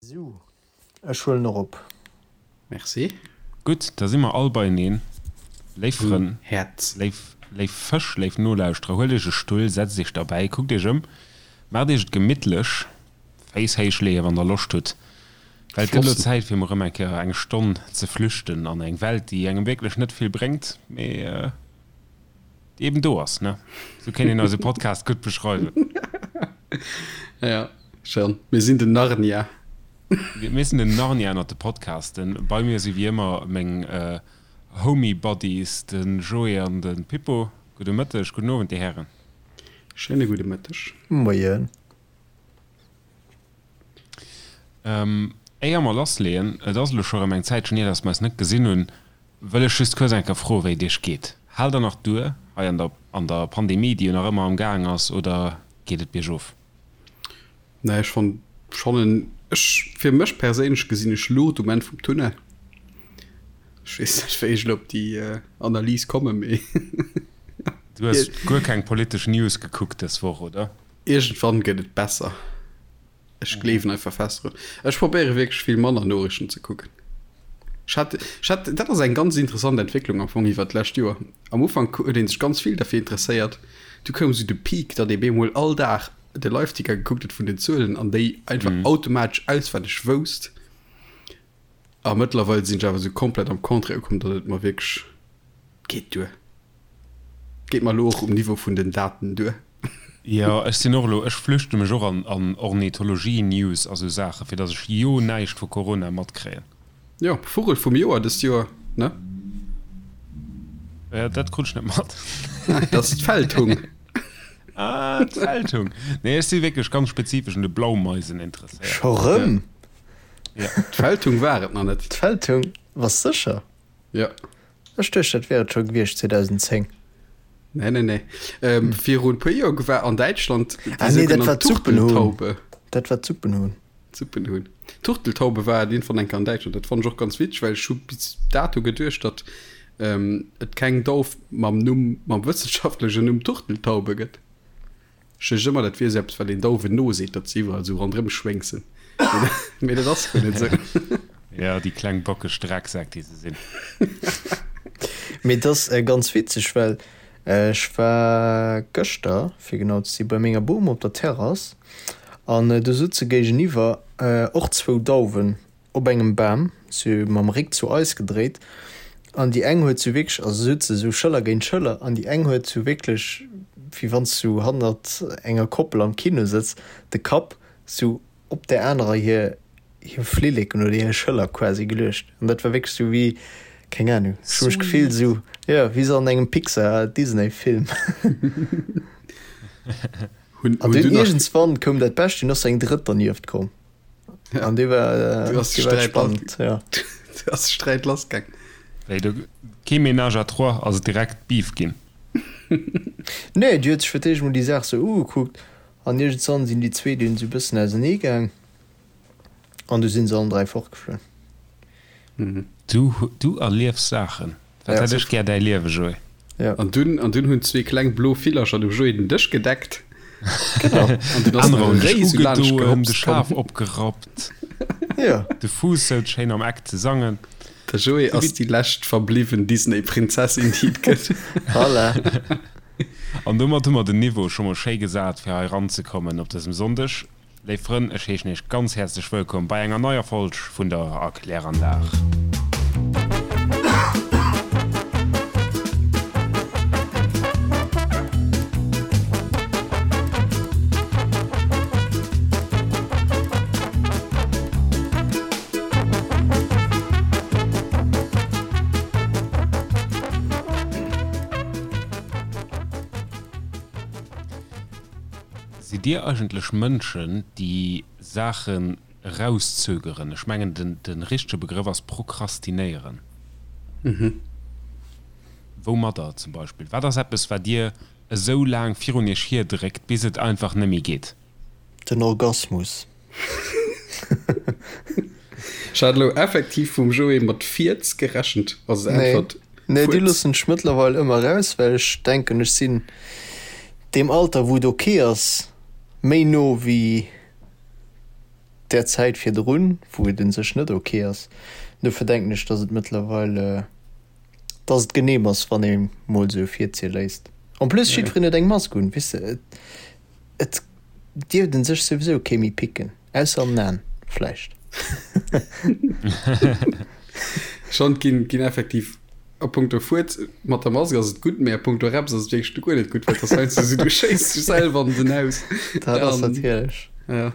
Sou, ech huelen och op. Merci. Gutt, da si mer all beieneen. Léif Frënn, Häerz. léif, léif Fësch, léif Nolauschterer, huelt iech e Stull, setzt iech derbäi, kuckt iech ëm, maacht iech et gemittlech, Féiss héich leeën, wann der Loscht hutt, well et gëtt elo Flossen. Zäit, fir mol erëm eng Kéier eng Stonn ze flüchten an eng Welt, déi engem wierklech net vill bréngt, mee déi eben do ass, ne? Sou kéint een eise Podcast gutt beschreiwen. Ja, schon. Mir sinn den Narnia. Mir sinn den Narnia ënnert de Podcasten. Bei mir si wéi ëmmer meng Homie Buddies, de Joé an de Pippo. Gudde Mëtteg, gudden Owend, Dir Hären. Schéine gudde Mëtteg. Moien. Éier mer lassleeën, et ass elo scho rëm eng Zäitchen hier, dass mer eis net gesinn hunn, wëll ech just kuerz eng Kéier froen, wéi et Iech geet. Haalt der nach duer hei an der an der Pandemie, déi jo nach ëmmer am Gaang ass, oder geet et biergof? Nee, ech fann schonn en, ech, fir mech perséinlech gesinn ech Luucht um Enn vum Tunnel. Ech weess net, wéi ech elo op déi Analys kommen, mee. Du hues guer keng politesch News gekuckt dës Woch, oder? Iergendwann gëtt et besser. Ech gleewen einfach fest drun. Ech probéiere wierklech vill manner Noriichten ze kucken. Ech hat, ech hat, dat ass eng ganz interessant Entwécklung am Fong iwwert d'lescht Joer. Am Ufank huet ee sech ganz vill derfir interesséiert. Du koum esou de Peak, datt ee bemol all Dag de Liveticker gekuckt huet vun den Zuelen an déi einfach automatesch auswenneg wousst. A mëttlerweil sinn ech awer esou komplett am Contraire ukomm, datt et mer wierklech geet duer. Geet mer elo och um Niveau vun den Daten duer. Jo, ech sinn och elo, ech flüchte mech och an an Ornithologie-News a sou Saachen, fir datt ech jo näischt vu Corona matkréien. Jo, Vugel vum Joer dëst Joer, ne? Jo, dat krut ech net mat. Dat ass d'Feldhung. Ah, d'Feldhung. Nee, ech si wierklech ganz spezifesch un de Blaumeisen interesséiert. Scho rëm? Ja. D'Feldhung war et nach net. D'Feldhung? Bass sécher? Jo. Ech duecht dat wär et scho gewiescht 2010. Nee, nee, nee. Ähm, virun puer Joer war an Däitschland déi Ah nee, dat war sougenannt d'Suppenhuhn. Turteltaube. Dat war d'Suppenhuhn. D'Suppenhuhn. D'Turteltaube war et iergendwann eng Kéier an Däitschland. Dat fannt ech och ganz witzeg, well ech hu bis dato geduecht, datt ähm, et keng Dauf mam Numm, mam wëssenschaftlechen Numm Turteltaube gëtt. Ech duecht ëmmer, dat wier esou eppes, wat een Dauwen noseet, datt se iwwerall esou ronderëm schwéngsen. Mee dat ass guer net esou. Jo, déi kleng bockeg Drecksäck, déi se sinn. Mee et ass ganz witzeg, well ech war gëschter, fir genau ze si, bei menger Bom op der Terrass an do sutze géigeniwwer och zwou Dauwen op engem Bam, se mam Réck zu eis gedréit, an déi eng huet sou wierklech, also se sutze sou Schëller géint Schëller, an déi eng huet sou wierklech, wéi wann s du hannert enger Koppel am Kino sëtz, de Kapp sou op där anerer hir hir Flilleken oder hir Schëller quasi geluecht. An dat war wierklech sou wéi, keng Ahnung, ech hu mech gefillt sou, jo, wéi sou an engem Pixar-Disney-Film. An dunn iergendswann koum dat Bescht, dunn ass sou eng drëtt dernieft komm. Ja. An dee war, äh, Du hast dee war Streit spannend, ja. Du hast Streit lassgaang. Wéi do kee Ménage à trois, ass et direkt Beef ginn. Nee, déi huet sech fir d'éischt mol déi Saach sou ugekuckt an iergendswann sinn déi zwee dunn sou bëssen ausenee gaang an du sinn se allen 3 fortgeflunn. Du, du erliefs Saachen. Dat Ja. hätt ech gär däi Liewe, Joé. Ja. An dunn, an dunn hunn zwee kleng blo Villercher dem Joé den Dësch gedeckt. Genau. An dunn ass Anerer nach hunn e dech Réi sou laanscht ugedoen, de gehopst Schaf komm. opgerappt, Ja. de Fuuss souz schéin am Eck ze sangen. De Joé Sou ass wéi. déi lescht verbliwwen Disney-Prinzessin, déi et gëtt. Voilà. An domat hu mer den Niveau scho mol schéi gesat, fir hei eranzekommen op dësem Sonndeg. Léif Frënn, ech heeschen Iech ganz häerzlech wëllkomm bei enger neier Folg vun der Erkläranlag. Sidd Dir eigentlech Mënschen, déi Saachen erauszögeren? Ech mengen, de richtege Begrëff ass prokrastinéieren. Woumadder zum Beispill? Wat ass eppes, wat Dir esou laang virun Iech hierdréckt, bis et einfach net méi geet? Den Orgasmus. Ech hat elo effektiv vum Joé mat Fierz gerechent als Äntwert. Nee, déi Fuerz. loossen ech mëttlerweil ëmmer raus, well ech denken, ech sinn deem Alter, wou et ok ass, méi no wéi. där Zäit virdrun, wou et un sech net ok ass. Dofir denken ech, dass et mëttlerweil, dass et genehm ass, wann ee mol sou virzie léisst. En plus, jiddwereen huet eng Mask un, weess de, et dierft un sech souwisou kee méi picken, ausser an den Aen vläicht. Schonn ginn ginn effektiv a punkto Fuerz mat der Mask ass et gutt, mee a punkto Reps ass et wierklech guer net gutt, well et ass heiansdo esou, du schéiss dech selwer an den Haus. Dat ass natierlech. Ja.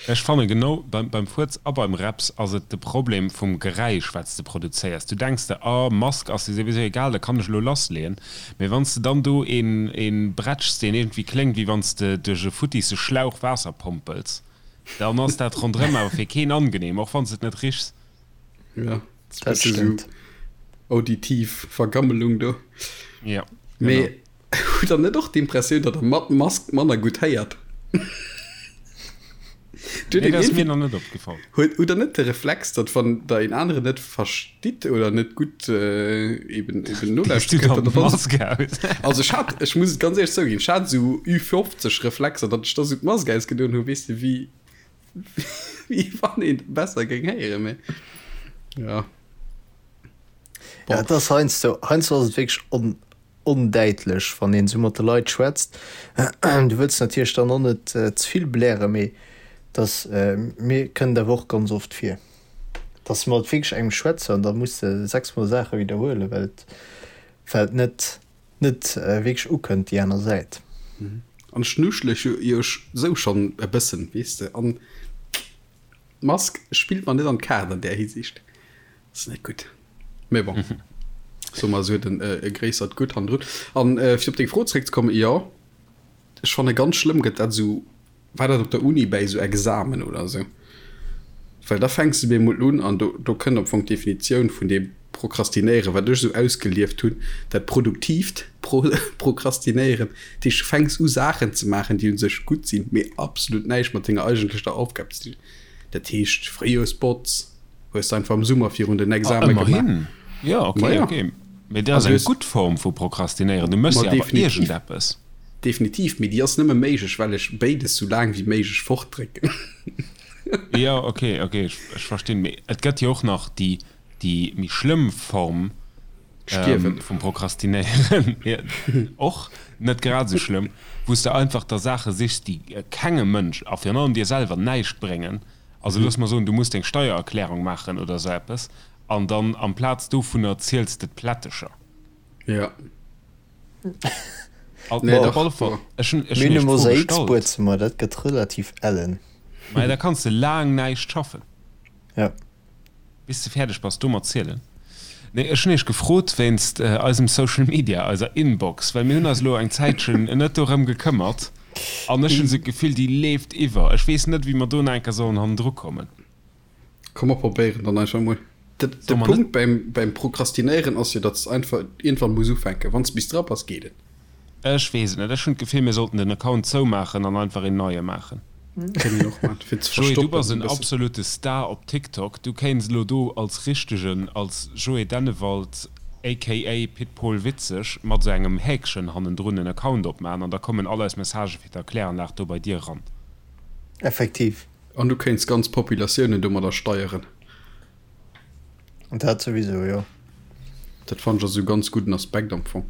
Ech fanne genau beim beim Fuerz a beim Reps ass et de Problem vum Geräisch wat s de produzéiers. Du denks der, ah Mask ass jo souwisou egal, da kann ech elo lassleeën. Mee wann s de dann do een een bretschs deen iergendwéi kléngt wéi wann s de duerch e futtisse Schlauch Waasser pompels, dann ass dat ronderëm awer fir keen angenehm, och wann s et net richs. Ja, dat ass esou auditiv Vergammelung do. Ja, genau. Mee hutt der net och d'Impressioun, datt der mat Mask manner gutt héiert? Nee, dat ass mir nach net opgefall. Huet hutt der net de Reflex, datt wann der een aneren net verstitt oder net gutt eben eben nolauschtere kënnt, datt der dann Mask aus? Also ech hat, ech muss et ganz éierlech zouginn, ech hat esou Ü50 Reflexer, datt ech da esou d'Mask ausgedoen hu, weess de, wéi wéi wann een besser géing héieren, mee ja. Bon. Ja, et ass heiansdo, heiansdo ass et wierklech on, ondäitlech, wann een esou mat de Leit schwätzt. Du wëlls natierlech dann och net ze vill blären, mee dass, mir kënnt awer och ganz oft vir, dass mat wierklech engem schwätze an da muss de sechsmol Saache widderhuelen, well et, well et net, net wierklech ukënnt déi aner Säit. An ech nuschele jo sou schonn e bëssen, weess de, an d'Mask spillt mer net an d'Kaart an där Hisiicht. Ass net gutt. Mee bon, soe mer, se huet en e gréissert Gutt hannendrun. An fir op deng Fro zeréckzekommen, jo, ech fanne ganz schlëmm gëtt dat esou, war dat op der Uni bäi esou Examen oder esou, well da fänks de bemol un an do do kënnt am Fong d'Definitioun vun deem Prokrastinéieren, wat ech esou ausgelieft hunn, dat produktiivt Prokrastinéieren. Dat heescht, du fänks u Saachen ze maachen, déi u sech gutt sinn, mee absolut näischt mat denger eigentlecher Aufgab ze dinn. Dat heescht, Fréijoersbotz hues de einfach am Summer virun den Exame gemaach. Ëmmerhin, jo, ok, ok. Mee dat ass eng gutt Form vu Prokrastinéieren. Du méchs jo awer iergendeppes. Definitiv, mee déi ass nëmme méiglech, well ech béides sou laang wéi méiglech fortdrécken. Jo, ok, ok, ech verstinn. Mee et gëtt jo och nach déi méi schlëmm Form vum Prokrastinéieren, och net grad esou schlëmm, wou s de einfach der Saache sichs, déi kengem Mënsch a virun allem dir selwer näischt bréngen. Also looss mer soen, du muss deng Steiererklärung maachen oder esou eppes an dann amplaz dovunner ziels de d'Plättecher. Ja. Nee, op alle Fall, ech hunn ech Mir hunn hunn e iech d'Fro gestallt. Mosaikbuedzëmmer, dat gëtt relativ ellen. Maja, da kanns de laang näischt schaffen. Ja. Bis de fäerdeg bass do mat zielen. Nee, ech hunn iech gefrot wéinst eisem Social Media, eiser Inbox, well mir hunn eis elo eng Zäitchen net dorëm gekëmmert an ech hunn esou d'Gefill, déi leeft iwwer. Ech weess net, wéi mer do nach eng Kéier sollen hannendru kommen. Komm mer probéieren dann einfach mol. De Punkt beim, beim Prokrastinéieren ass jo, datt s einfach iergendwann muss ufänken. Wann s bis dra bass, geet et. Ech weess et net. Ech hunn d'Gefill, mir sollten den Account zoumaachen an einfach een neie maachen. Kéint een och maachen, fir ze Joé, du verstoppen bass e en bëssen. absolute Star op TikTok. Du kéints elo do als richtegen, als Joé Dennewald aka Pit Pol Witzeg mat esou engem Häkchen hannendrun en Account opmaachen an da kommen all eis Messagë fir d'Erkläranlag do bei dir eran. Effektiv. An du kéints ganz Populatiounen domadder steieren. Dat souwisou, jo. Dat fannen ech ass e ganz gudden Aspekt am Fong.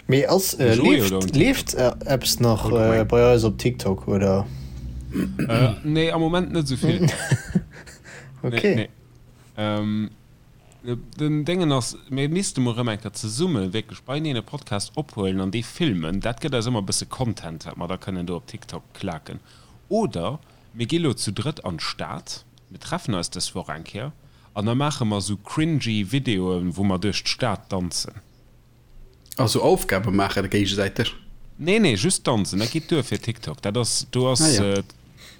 Mee ass, leeft, leeft eppes nach bei eis op TikTok, oder? Nee, am Moment net esou vill. Ok. Nee, nee. Den Déngen ass, mir misste mol erëm eng Kéier zesumme wierklech beieneen e Podcast ophuelen an dee filmen. Dat gëtt eis ëmmer e bësse Content, wat mer da kënnen do op TikTok klaken. Oder mir gi lo zu drëtt an d'Stad, mir treffen eis dës Woch eng Kéier an da maache mer sou cringy Videoen, wou mer duerch d'Stad danzen. A sou Aufgabe maache géigesäiteg? Nee, nee, just danzen, dat geet duer fir TikTok. Dat ass, do ass, Ah ja.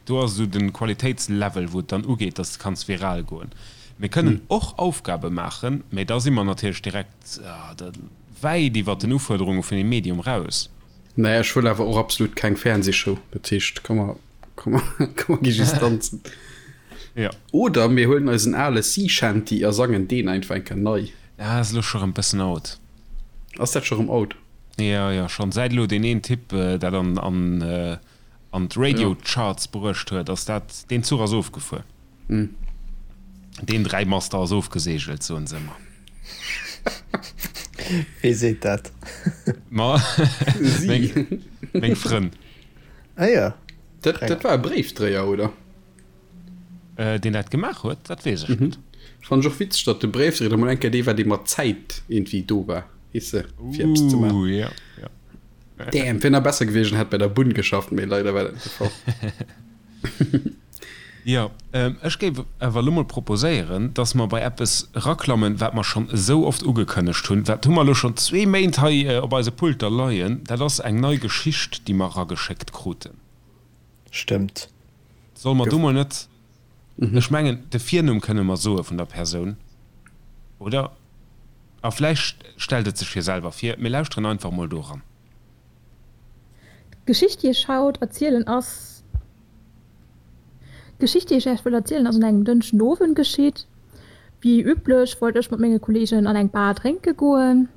do ass esou den Qualitéitslevel, wou et dann ugeet, dass de kanns viral goen. Mir kënnen och Aufgabe maachen, mee da si mer natierlech direkt wäit iwwert den Ufuerderunge vun dem Medium raus. Naja, ech wëll awer och absolut keng Fernsehshow. Dat heescht, komm mer, komm mer, komm mer gi just danzen. Ja. Oder mir huelen eisen ale Sea Shanty a sangen deen einfach eng Kéier nei. Ah, ass elo scho rëm bëssen out. Ass dat scho rëm out? Jo, jo, schonn. Säit elo deen een Typ dat an, an, an. An d'Radio Charts bruecht huet, ass dat, deen Zuch ass ofgefuer. Deen Dräimaster ass ofgeseegelt, soen se ëmmer. Wee seet dat? Ma meng Frënn. Ah jo. Dat, dat war e Bréifdréier, oder? Deen dat gemaach huet, dat weess ech net. Fannen ech och witzeg, datt de Bréifdréier da mol eng Kéier dee war, dee mat Zäit iergendwéi do war, weess de, fir eppes ze maachen. Ooh, jo, jo. Damn, wier nach besser gewiescht en hätt bei der Bunn geschafft, mee leider war dat net de Fall. Jo, ech géif awer elo mol proposéieren, dass mer bei eppes eraklammen, wat mer schonn esou oft ugekënnegt hunn. Dat hu mer elo schonn zwee Méint hei op eise Pulter leien. Dat ass eng nei Geschicht, déi mer erageschéckt kruten. Stëmmt. Solle mer do mol net, ech mengen, de Virnumm kënne mer soe vun der Persoun, oder? A vläicht stellt et sech jo selwer vir. Mir lauschteren einfach mol do eran. D'Geschicht déi ech haut erzielen ass. D'Geschicht déi ech Äech wëll erzielen ass un engem Dënschden Owend geschitt. Wéi üblech wollt ech mat menge Kollegen an eng Bar drénke goen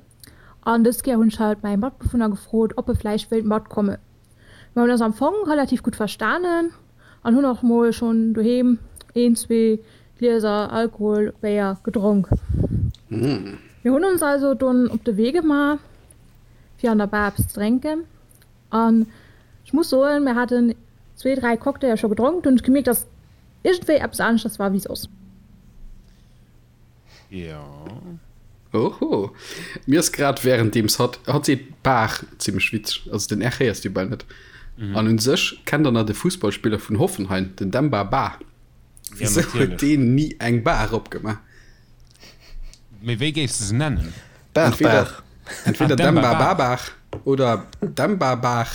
an dës Kéier hunn ech halt mäi Matbewunner gefrot ob e vläicht wéilt matkommen. Mer hunn eis am Fong relativ gutt verstanen an hunn och mol schonn doheem een, zwee Glieser Alkohol, Béier, gedronk. Mir hunn ons also dunn op de Wee gemaach fir an der Bar eppes ze drénken an ech muss soen, mir haten zwee, dräi Cocktailer scho gedronk, dunn hunn ech gemierkt, dass iergendwéi eppes aneschters war wéi soss. Jo. Oho. Mir ass grad währenddeems hatt, hatt seet Bar zimmlech witzeg, also den R héiers du bal net. An un sech kennt der nach de Fussballspiller vun Hoffenheim, den Demba Ba? Ja, Wisou huet natierlech. deen ni eng Bar opgemaach? Mee wéi géifs de se nennen? Bar, Entweder, Bar. entweder Ah, Demba Demba Bar. Ba Bar oder Demba Bar.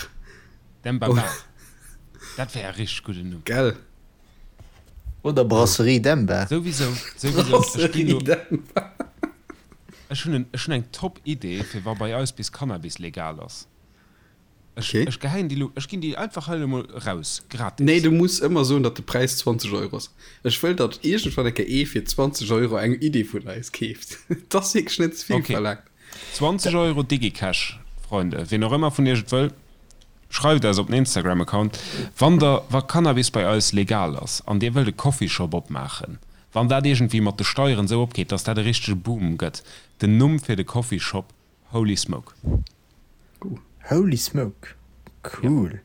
Demba Bar. Dat wär e richteg gudden Numm. Gell? Oder Brasserie Demba. Souwisou, souwisou. Ech ginn Brasserie lo, Demba. ech hunn en, ech hunn eng top Idee fir wa bei eis bis Cannabis legal ass. Ech, Okay. ech geheien déi lo, ech ginn déi einfach hei elo mol raus, gratis. Nee, du muss ëmmer soen, datt de Präis 20 Euro ass. Ech wëll, datt iergendwann eng Kéier ee fir 20 Euro eng Idee vun eis keeft. Et ass wierklech net ze vill Okay. verlaangt. 20 Euro Digicash, Freunde. Ween och ëmmer vun iech et wëll, schreift eis op den Instagram-Account. Wann der, wa Cannabis bei eis legal ass an dir wëllt e Coffeeshop opmaachen, wann dat iergendwéi mat de Steieren esou opgeet, datt dat e richtege Boom gëtt, den Numm fir de Coffeeshop, Holy Smoke. Holy Smoke, cool.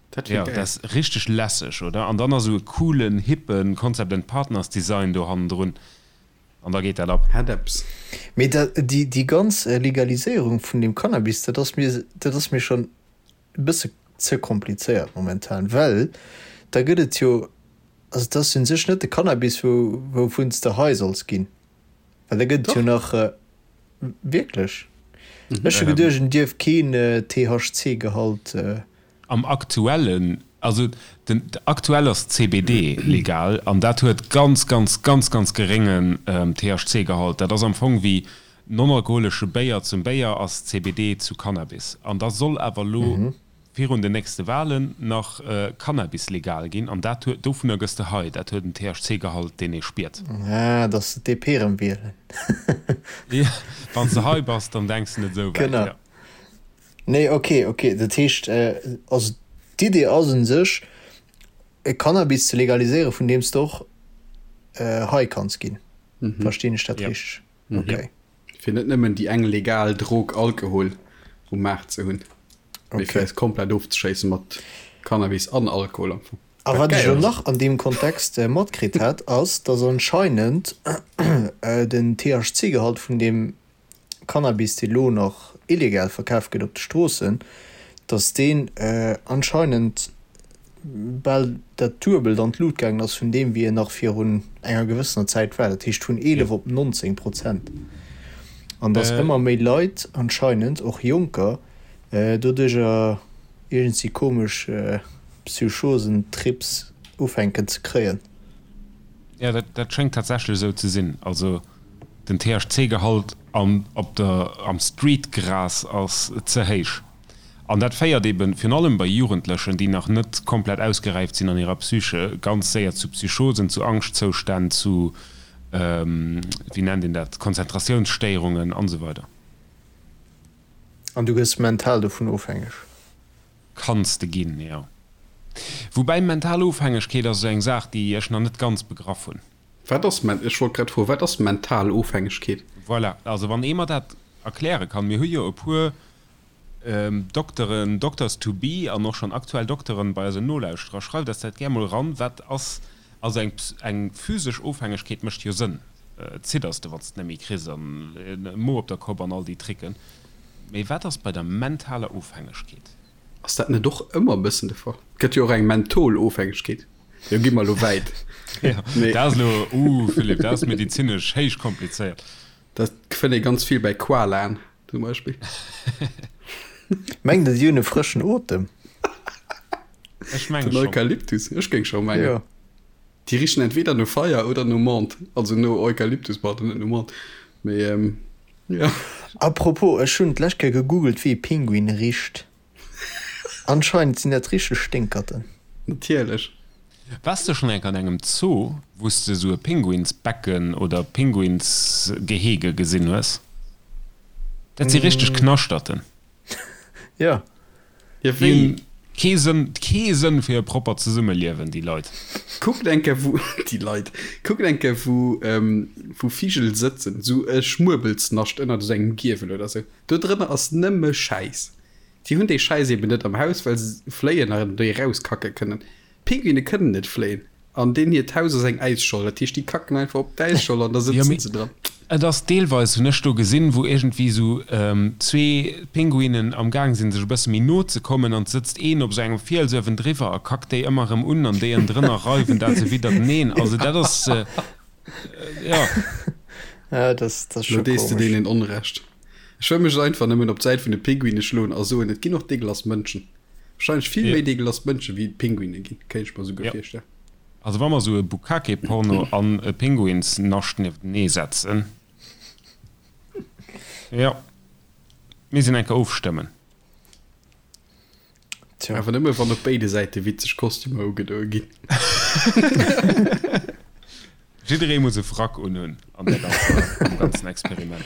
Dat wier Jo, geil. dat ass richteg lässeg, oder? An dann ass esou e coolen, hippen Concept and Partners Design do hannendrun an da geet dat ab. Hätt eppes. Mee dat, déi, déi ganz Legaliséierung vun deem Cannabis, dat ass mir, dat ass mir schonn e bësse ze komplizéiert momentan, well da gëtt et jo, also et ass un sech net de Cannabis, wou, wouvun s de high solls ginn, well da gëtt et jo nach, wierklech? Ech hu geduecht, en dierf keen THC-Gehalt. Am aktuellen, also den aktuell ass CBD legal an dat huet ganz, ganz, ganz, ganz geréngen THC-Gehalt. Dat ass am Fong wéi non-alkoholesche Béier zum Béier ass CBD zu Cannabis. An da soll awer elo virun den nächste Wahlen nach Cannabis legal ginn an dat huet, dovunner gëss de high, dat huet en THC-Gehalt deen ee spiert. Ah, dass se d'DP erëm wielen. Jo, wann s de high bass, dann denks de net esou wäit, Genau. jo. Nee, ok, ok. Dat heescht, also d'Idee ass un sech, e Cannabis ze legaliséieren, vun deem s de och high kanns ginn. Verstinn ech dat richteg? Ok. Fir net nëmmen déi eng legal Drog Alkohol um Maart ze hunn, mee fir eis komplett ofzeschéisse mat Cannabis an Alkohol am Fong. A wat ech elo nach an deem Kontext matkritt hat, ass, dass anscheinend den THC-Gehalt vun deem Cannabis, dee lo nach illegal verkaf gëtt op de Stroossen, datt deen anscheinend bal dat Duebelt an d'Lut gaangen ass vun deem, wéi en nach virun enger gewëssener Zäit war, dat heescht vun 11 op 19 Prozent. An datt ëmmer méi Leit anscheinend, och Jonker, doduercher iergendwéi komesch Psychosen-Trips ufänken ze kréien. Jo, dat schéngt tatsächlech esou ze sinn. Also den THC-Gehalt am op der am Streetgras ass ze héich. An dat féiert eben, virun allem bei Jugendlechen, déi nach net komplett ausgeräift sinn an hirer Psyche, ganz séier zu Psychosen, zu Angschtzoustänn, zu, wéi nennt een dat, Konzentratiounsstéierungen an esou weider. An du gëss mental dovun ofhängeg? Kanns de ginn, jo. Woubäi mental Ofhängegkeet ass esou eng Saach, déi ech nach net ganz begraff hunn. Wat ass, ech wollt grad froen, wat ass mental Ofhängegkeet? Voilà, also wann ee mer dat erkläre kann. Mir hu jo e puer Dokteren, Doctors to be an och schonn aktuell Dokteren bei eisen Nolauschterer. Schreift eis dat gär mol eran. Wat ass, also eng eng physesch Ofhängegkeet mécht jo Sënn, zidders de wann s de net méi kriss an Mo op der Kopp an all déi Tricken. Mee wat ass bei der mentaler Ofhängegkeet? Ass dat net och ëmmer e bëssen de Fall? Et gëtt jo och eng Mentholofhängegkeet. Jo, gi mer elo wäit. Jo, dat ass elo, uh Philippe, dat ass medizinesch héich komplizéiert. Dat fënnt ee ganz vill bei Koalaen zum Beispill. Mengt Der, déi hunn e frëschen Otem? Ech menge Den schonn. Eukalyptus, ech géing scho mengen. Jo. Déi richen entweder no Feier oder no Menthe, also no Eukalyptus, pardon, net no Menthe. Mee jo. Apropos, ech hunn d'lescht Kéier gegoogelt, wéi e Pinguin richt. Anscheinend sinn dat richteg Sténkerten. Natierlech. Wars de schon enk an engem Zoo wous de sou e Pinguinsbecken oder Pinguinsgehege gesinn hues? Dat si richteg Knaschterten. Jo. Jo, Déi wéi? hunn kee Sënn, kee Sënn fir e proppert Zesummeliewen, déi Leit. Kuckt eng Kéier wou, déi Leit, kuckt eng Kéier wou, wou Vigel sëtzen, sou e Schmuebelsnascht ënnert esou engem Giewel oder sou. Do drënner ass nëmme Schäiss. Déi hunn dee Schäiss eben net am Haus, well se fléien an déi erauskacke kënnen. Pinguine kënnen net fléien an deen hiert Haus ass eng Äisscholl. Dat heescht, déi kacken einfach op d'Äisscholl an da Jo, sëtzen mee se dran. et ass deelweis, hunn ech do gesinn, wou iergendwéi esou zwee Pinguinen am Gaang sinn, sech e bësse méi no ze kommen an et sëtzt een op esou engem Fiels uewendriwwer a kackt déi ëmmer erëm un an déi ënnendrënner reiwen dat se widderteneen. Also dat ass, jo. Ja, dat ass Lo scho dees de komesch. deenen Onrecht. Ech wëll mech einfach nëmmen op d'Säit vun de Pinguine schloen a soen, et ginn och deegelass Mënschen. Wahrscheinlech vill méi deegelass Mënsche wéi et Pinguine ginn, kéint ech mer esouguer Ja. virstellen. Also wa mer esou e Bukkake-Porno an e Pinguinsnascht nieftenee setzen, jo, mir sinn enker ofstëmmen. Tja. Awer nëmme wann op béide Säite witzeg Kostümer ugedoe ginn. Jidderee muss e Frack unhunn an der ganzer, am ganzen Experiment.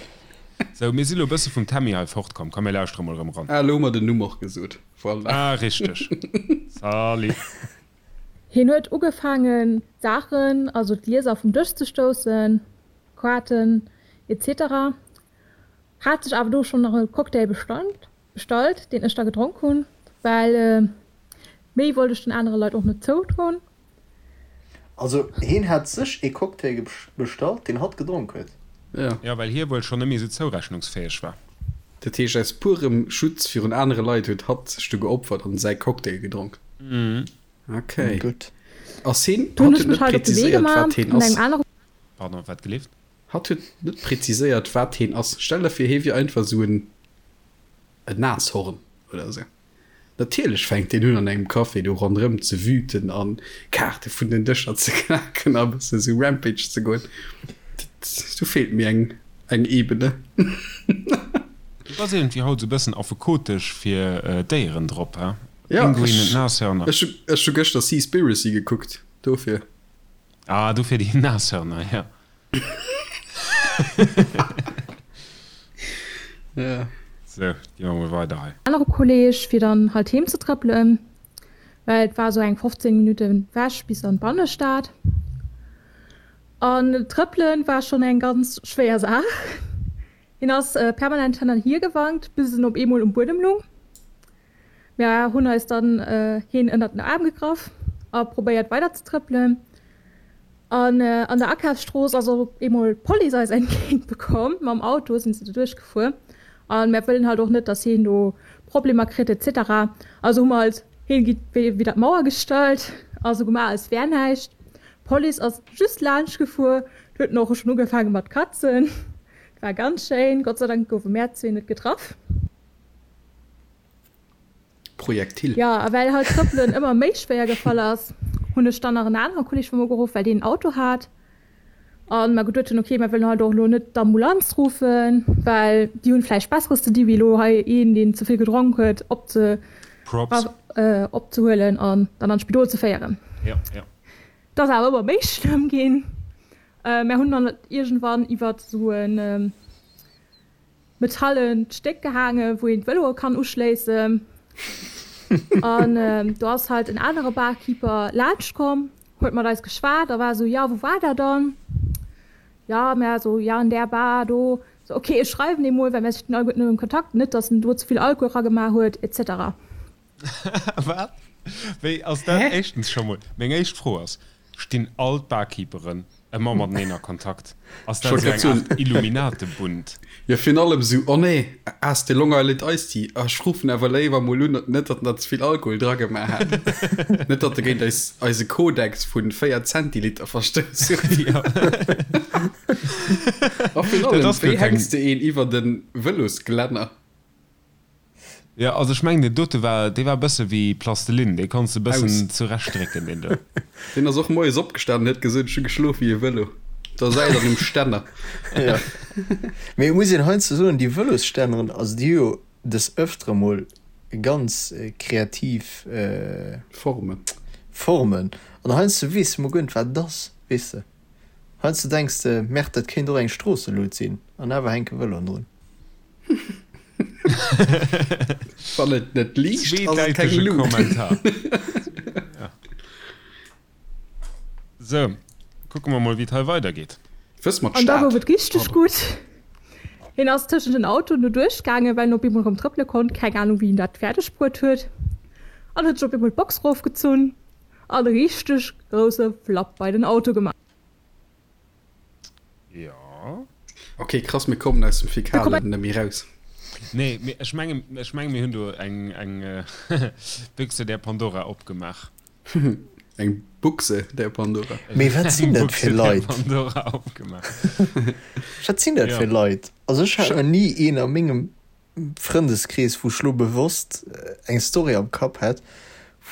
Sou, mir si lo e bësse vum Tammy hei fortkomm. Komm, mir lauschtere mol erëm eran. Ah, elo hu mer den Numm och gesot. Voilà. Ah, richteg. Salut. Hien huet ugefaangen d'Saachen, also d'Glieser vum Dësch ze stoussen, Kaarten etc. Hat sech awer do schonn nach e Cocktail bestallt. Bestallt, deen ech da gedronk hunn, well méi wollt ech den anere Leit och net zoudroen. Also heen hat sech ee Cocktail bestallt, deen hatt gedronk huet. Ja. Jo, well hie wuel schonn net méi esou zourechnungsfäeg war. Dat heescht, aus purem Schutz virun anere Leit huet hatt sech du geopfert an säi Cocktail gedronk. Okay. Gutt. Ass heen, Du hunn hatt ech huet mech net halt op de Wee präziséiert, gemaach wat heen mat engem ass. anere. Pardon, wat gelift? Hatt huet net präziséiert, wat heen ass. Stell der vir, hee wier einfach esou en. En Nashorn oder esou. Natierlech fänkt deen un an engem Café do ronderëm ze wüten an Kaarte vun den Dëscher ze knaken a bëssen esou Rampage ze goen. Dat, do feelt mir eng, eng Ebene. Du bass iergendwéi haut esou bëssen affekotesch fir Déieren drop, he? Ja, Pinguinen, ech, Nashörner. ech, ech hu gëschter Seaspiracy gekuckt, dofir. Ah, dofir déi Nashörner, ja. Ja. Sou, gi mer mol weider hei. Anere Kolleg fir dann halt heem ze trëppelen, well et war sou eng 15 Minutten wech bis an d'Bannestad. An trëppelen war schonn eng ganz schwéier Saach. Hien ass permanent hin an hier gewankt, bis en op eemol um Buedem lung. Mir hunn eis dann heen ënnert den Aarm gegraff a probéiert weider ze trëppelen. An an der Akafsstrooss ass och op eemol d'Police eis entgéint bekomm. Mam Auto sinn se do duerchgefuer. An mär wëllen halt och net, dass heen do Problemer kritt et cetera. Also hu mer halt heen widder d'Mauer gestallt a sou gemaach als wär näischt. D'Police ass just laanscht gefuer. Do huet en och schonn ugefaange mat katzen. War ganz schéin. Gott sei Dank goufe mär zwee net getraff. Projektil. Jo, a well halt Trëppelen ëmmer méi schwéier gefall ass, hunn ech dann nach en anere Kolleg vu mer geruff, well deen en Auto hat. A mer geduet hunn, ok, mer wëllen halt och elo net d'Ambulanz ruffen, well déi hunn vläicht Besseres ze di wéi elo hei een, deen ze vill gedronk huet, opze Props. opzehuelen an dann an d'Spidol ze féieren. Jo, jo. Et ass awer ëmmer méi schlëmm ginn. Mer hunn dann iergendwann iwwert esou en Metallent Stéck gehaangen, wou een d'Vëloe kann uschléissen. An do ass halt en anere Barkeeper laanscht komm, huet mat eis geschwat a war esou, Jo, wou war der dann? Jo, mär esou, Jo, an där Bar do. So, ok, ech schreiwen deem mol, well mär stinn alleguerten elo am Kontakt, net dass en do ze vill Alkohol ragemaach huet, etc. Wat? Wéi ass dat? Éischtens scho mol, meng éischt Fro ass, Stinn all d'Barkeeperen ëmmer mateneen a Kontakt? Ass dat esou eng Art Illuminatebund? Jo, virun allem esou, Oh nee, ass de Long Island Iced Tea? Ah, ech ruffen awer léiwer mol un, net datt en der ze vill Alkohol dragemaach hat. Net datt e géint eis, eise Kodex vu 4 Zentiliter verstouss huet. Jo. A virun allem, wéi hänks de een iwwer de Vëlosglänner? Jo, also ech mengen deen dote war, dee war e bësse wéi Plastelin, dee konns de e bëssen zurechtdrécken, deen do. Deen ass och moies opgestan an huet gesot, ech hu geschlof wéi e Vëlo. Da säit an um Stänner. Jo, mee et muss een heiansdo soen, déi Vëlosstänneren, also déi hu jo des Ëftere mol ganz kreativ Formen. Formen an heiansdo weess de mol guer net wat et ass, weess de. Heiansdo denks de, Merde, dat kéint och eng Stroosselut sinn an awer hänke Vëloen drun. Wann et net liicht, ass et keng Lut. Kommentar. Ja. So, kucke mer mol, wéi et hei weidergeet. Wëss mer An da gouf d'Stad? et richteg gutt. Hien ass tëschent den Autoen do duerchgaangen, well en op eemol erëm trëppele konnt, keng Anung wéi en dat fäerdeg bruet huet, an huet sech op eemol d'Box rofgezunn an e richteg grousse Flapp bei den Auto gemaach. Jo. Ok, krass, mir kommen aus dem Fäkalen net méi raus. Nee, mee ech mengen, ech mengen, mir hunn do eng, eng Büchse der Pandora opgemaach. Eng Buchse der Pandora. Mee wat sinn dat fir Eng Buchse der Leit? Pandora opgemaach. Wat sinn dat fir Leit? Also ech hat nach ni een a mengem Frëndeskrees, wou ech lo bewosst eng Story am Kapp hätt,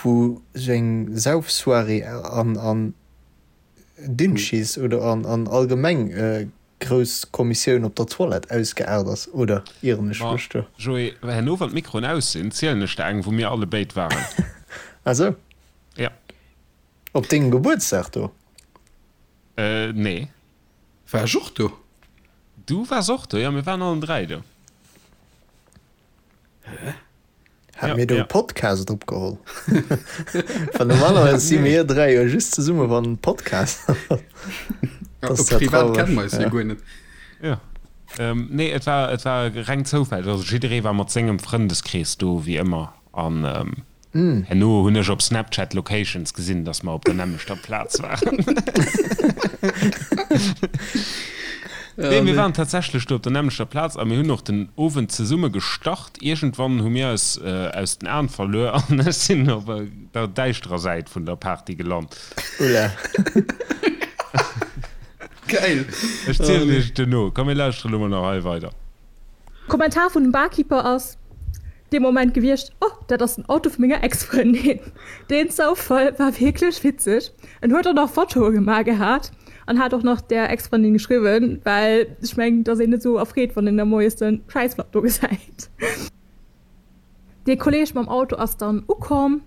wou sou eng Saufsoirée an, an Dünnschiss oder an an allgemeng grouss Kommissioun op der Toilette ausgeaart ass, oder ieren ech Ma mech do? Joé, herno wann d'Mikroen aus sinn, zielen ech der eng, wou mir alle béid waren. Ah sou. Ja. Op dengem Gebuertsdag do? Nee. War ech och do? Du waars och do, jo, mir waren allen 3 do. Hä? Hat mir do e Podcast opgeholl? Well normalerweis si mir 3 jo just zesumme wann en Podcast ass. Privat kenne mer eis jo guer net. Jo. Nee, et war, et war reng Zoufall. Also jidderee war mat sengem Frëndeskrees do, wéi ëmmer. An herno hunn ech op Snapchat Locations gesinn, dass mer op der nämmlechter Plaz waren. Nee, mir waren tatsächlech do op der nämmlechter Plaz a mir hunn och den Owend zesumme gestart. Iergendwann hu mir eis aus den Aen verluer an ech sinn op der däischterer Säit vun der Party gelant. Ulla. Geil! Ech zielen iech et duerno. Komm mir lauschteren elo mol nach hei weider. Kommentar vun dem Barkeeper ass dee Moment gewiescht, Oh, dat ass den Auto vu menger Ex-Frëndin. Deen Zoufall war wierklech witzeg. En huet och nach Fotoe gemaach gehat an hat och nach der Ex-Frëndin geschriwwen, well ech mengen, et ass een net esou erfreet, wann een da moies de Schäissflapp do gesäit. Dee Kolleeg mam Auto ass dann ukomm,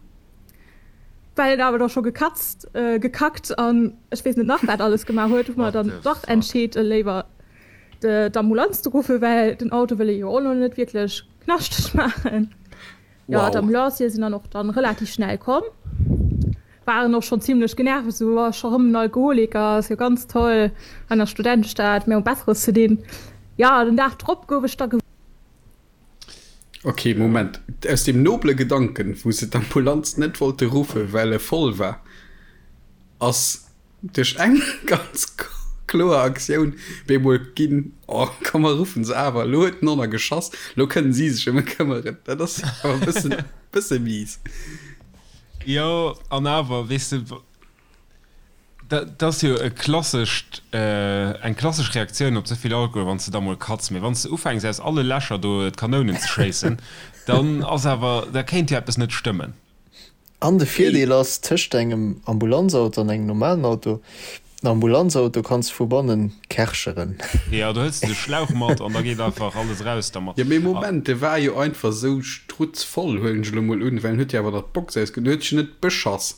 well en awer da scho gekatzt, gekackt an ech weess net nach wat alles gemaach huet, hu mer dann dach entscheet, léiwer d'Ambulanz ze ruffen, well den Auto wëll ee jo och elo net wierklech knaschteg maachen. Jo, d'Ambulanciere sinn dann och dann relativ schnell komm, waren och schonn zimlech genervt, esou, oh, scho rëm en Alkoholiker, ass jo ganz toll an der Studentestad, mir hu Besseres ze dinn. Jo, den Dag drop gouf ech da. Ok, Moment, aus deem noble Gedanken, wou se d'Ambulanz net wollte ruffen, well e voll war, ass Duerch eng ganz kloer Aktioun bemol ginn, oh komm mer ruffen se awer, elo huet den Honner geschoss, elo kënnen si sech ëm e këmmeren. Dat ass awer e bëssen, bësse mies. Jo, an awer, weess de, dat ass jo e klassescht, eng klassesch Reaktioun op ze vill Alkohol, wann s de da mol katz. Mee wann s de ufänks aus alle Lächer do d'Kanounen ze schéissen, dann ass awer, da kéint jo eppes net stëmmen. An de Virdeel ass, tëscht engem Ambulanzauto an engem normalen Auto, den Ambulanzauto kanns de vu bannen kercheren. Jo, do hëls de de Schlauch mat an da geet einfach alles raus dermat. Jo, mee Moment, de war jo einfach esou strutzvoll, huelen ech elo mol un, well en huet jo awer nach d'Box ausge, en huet sech jo net beschass.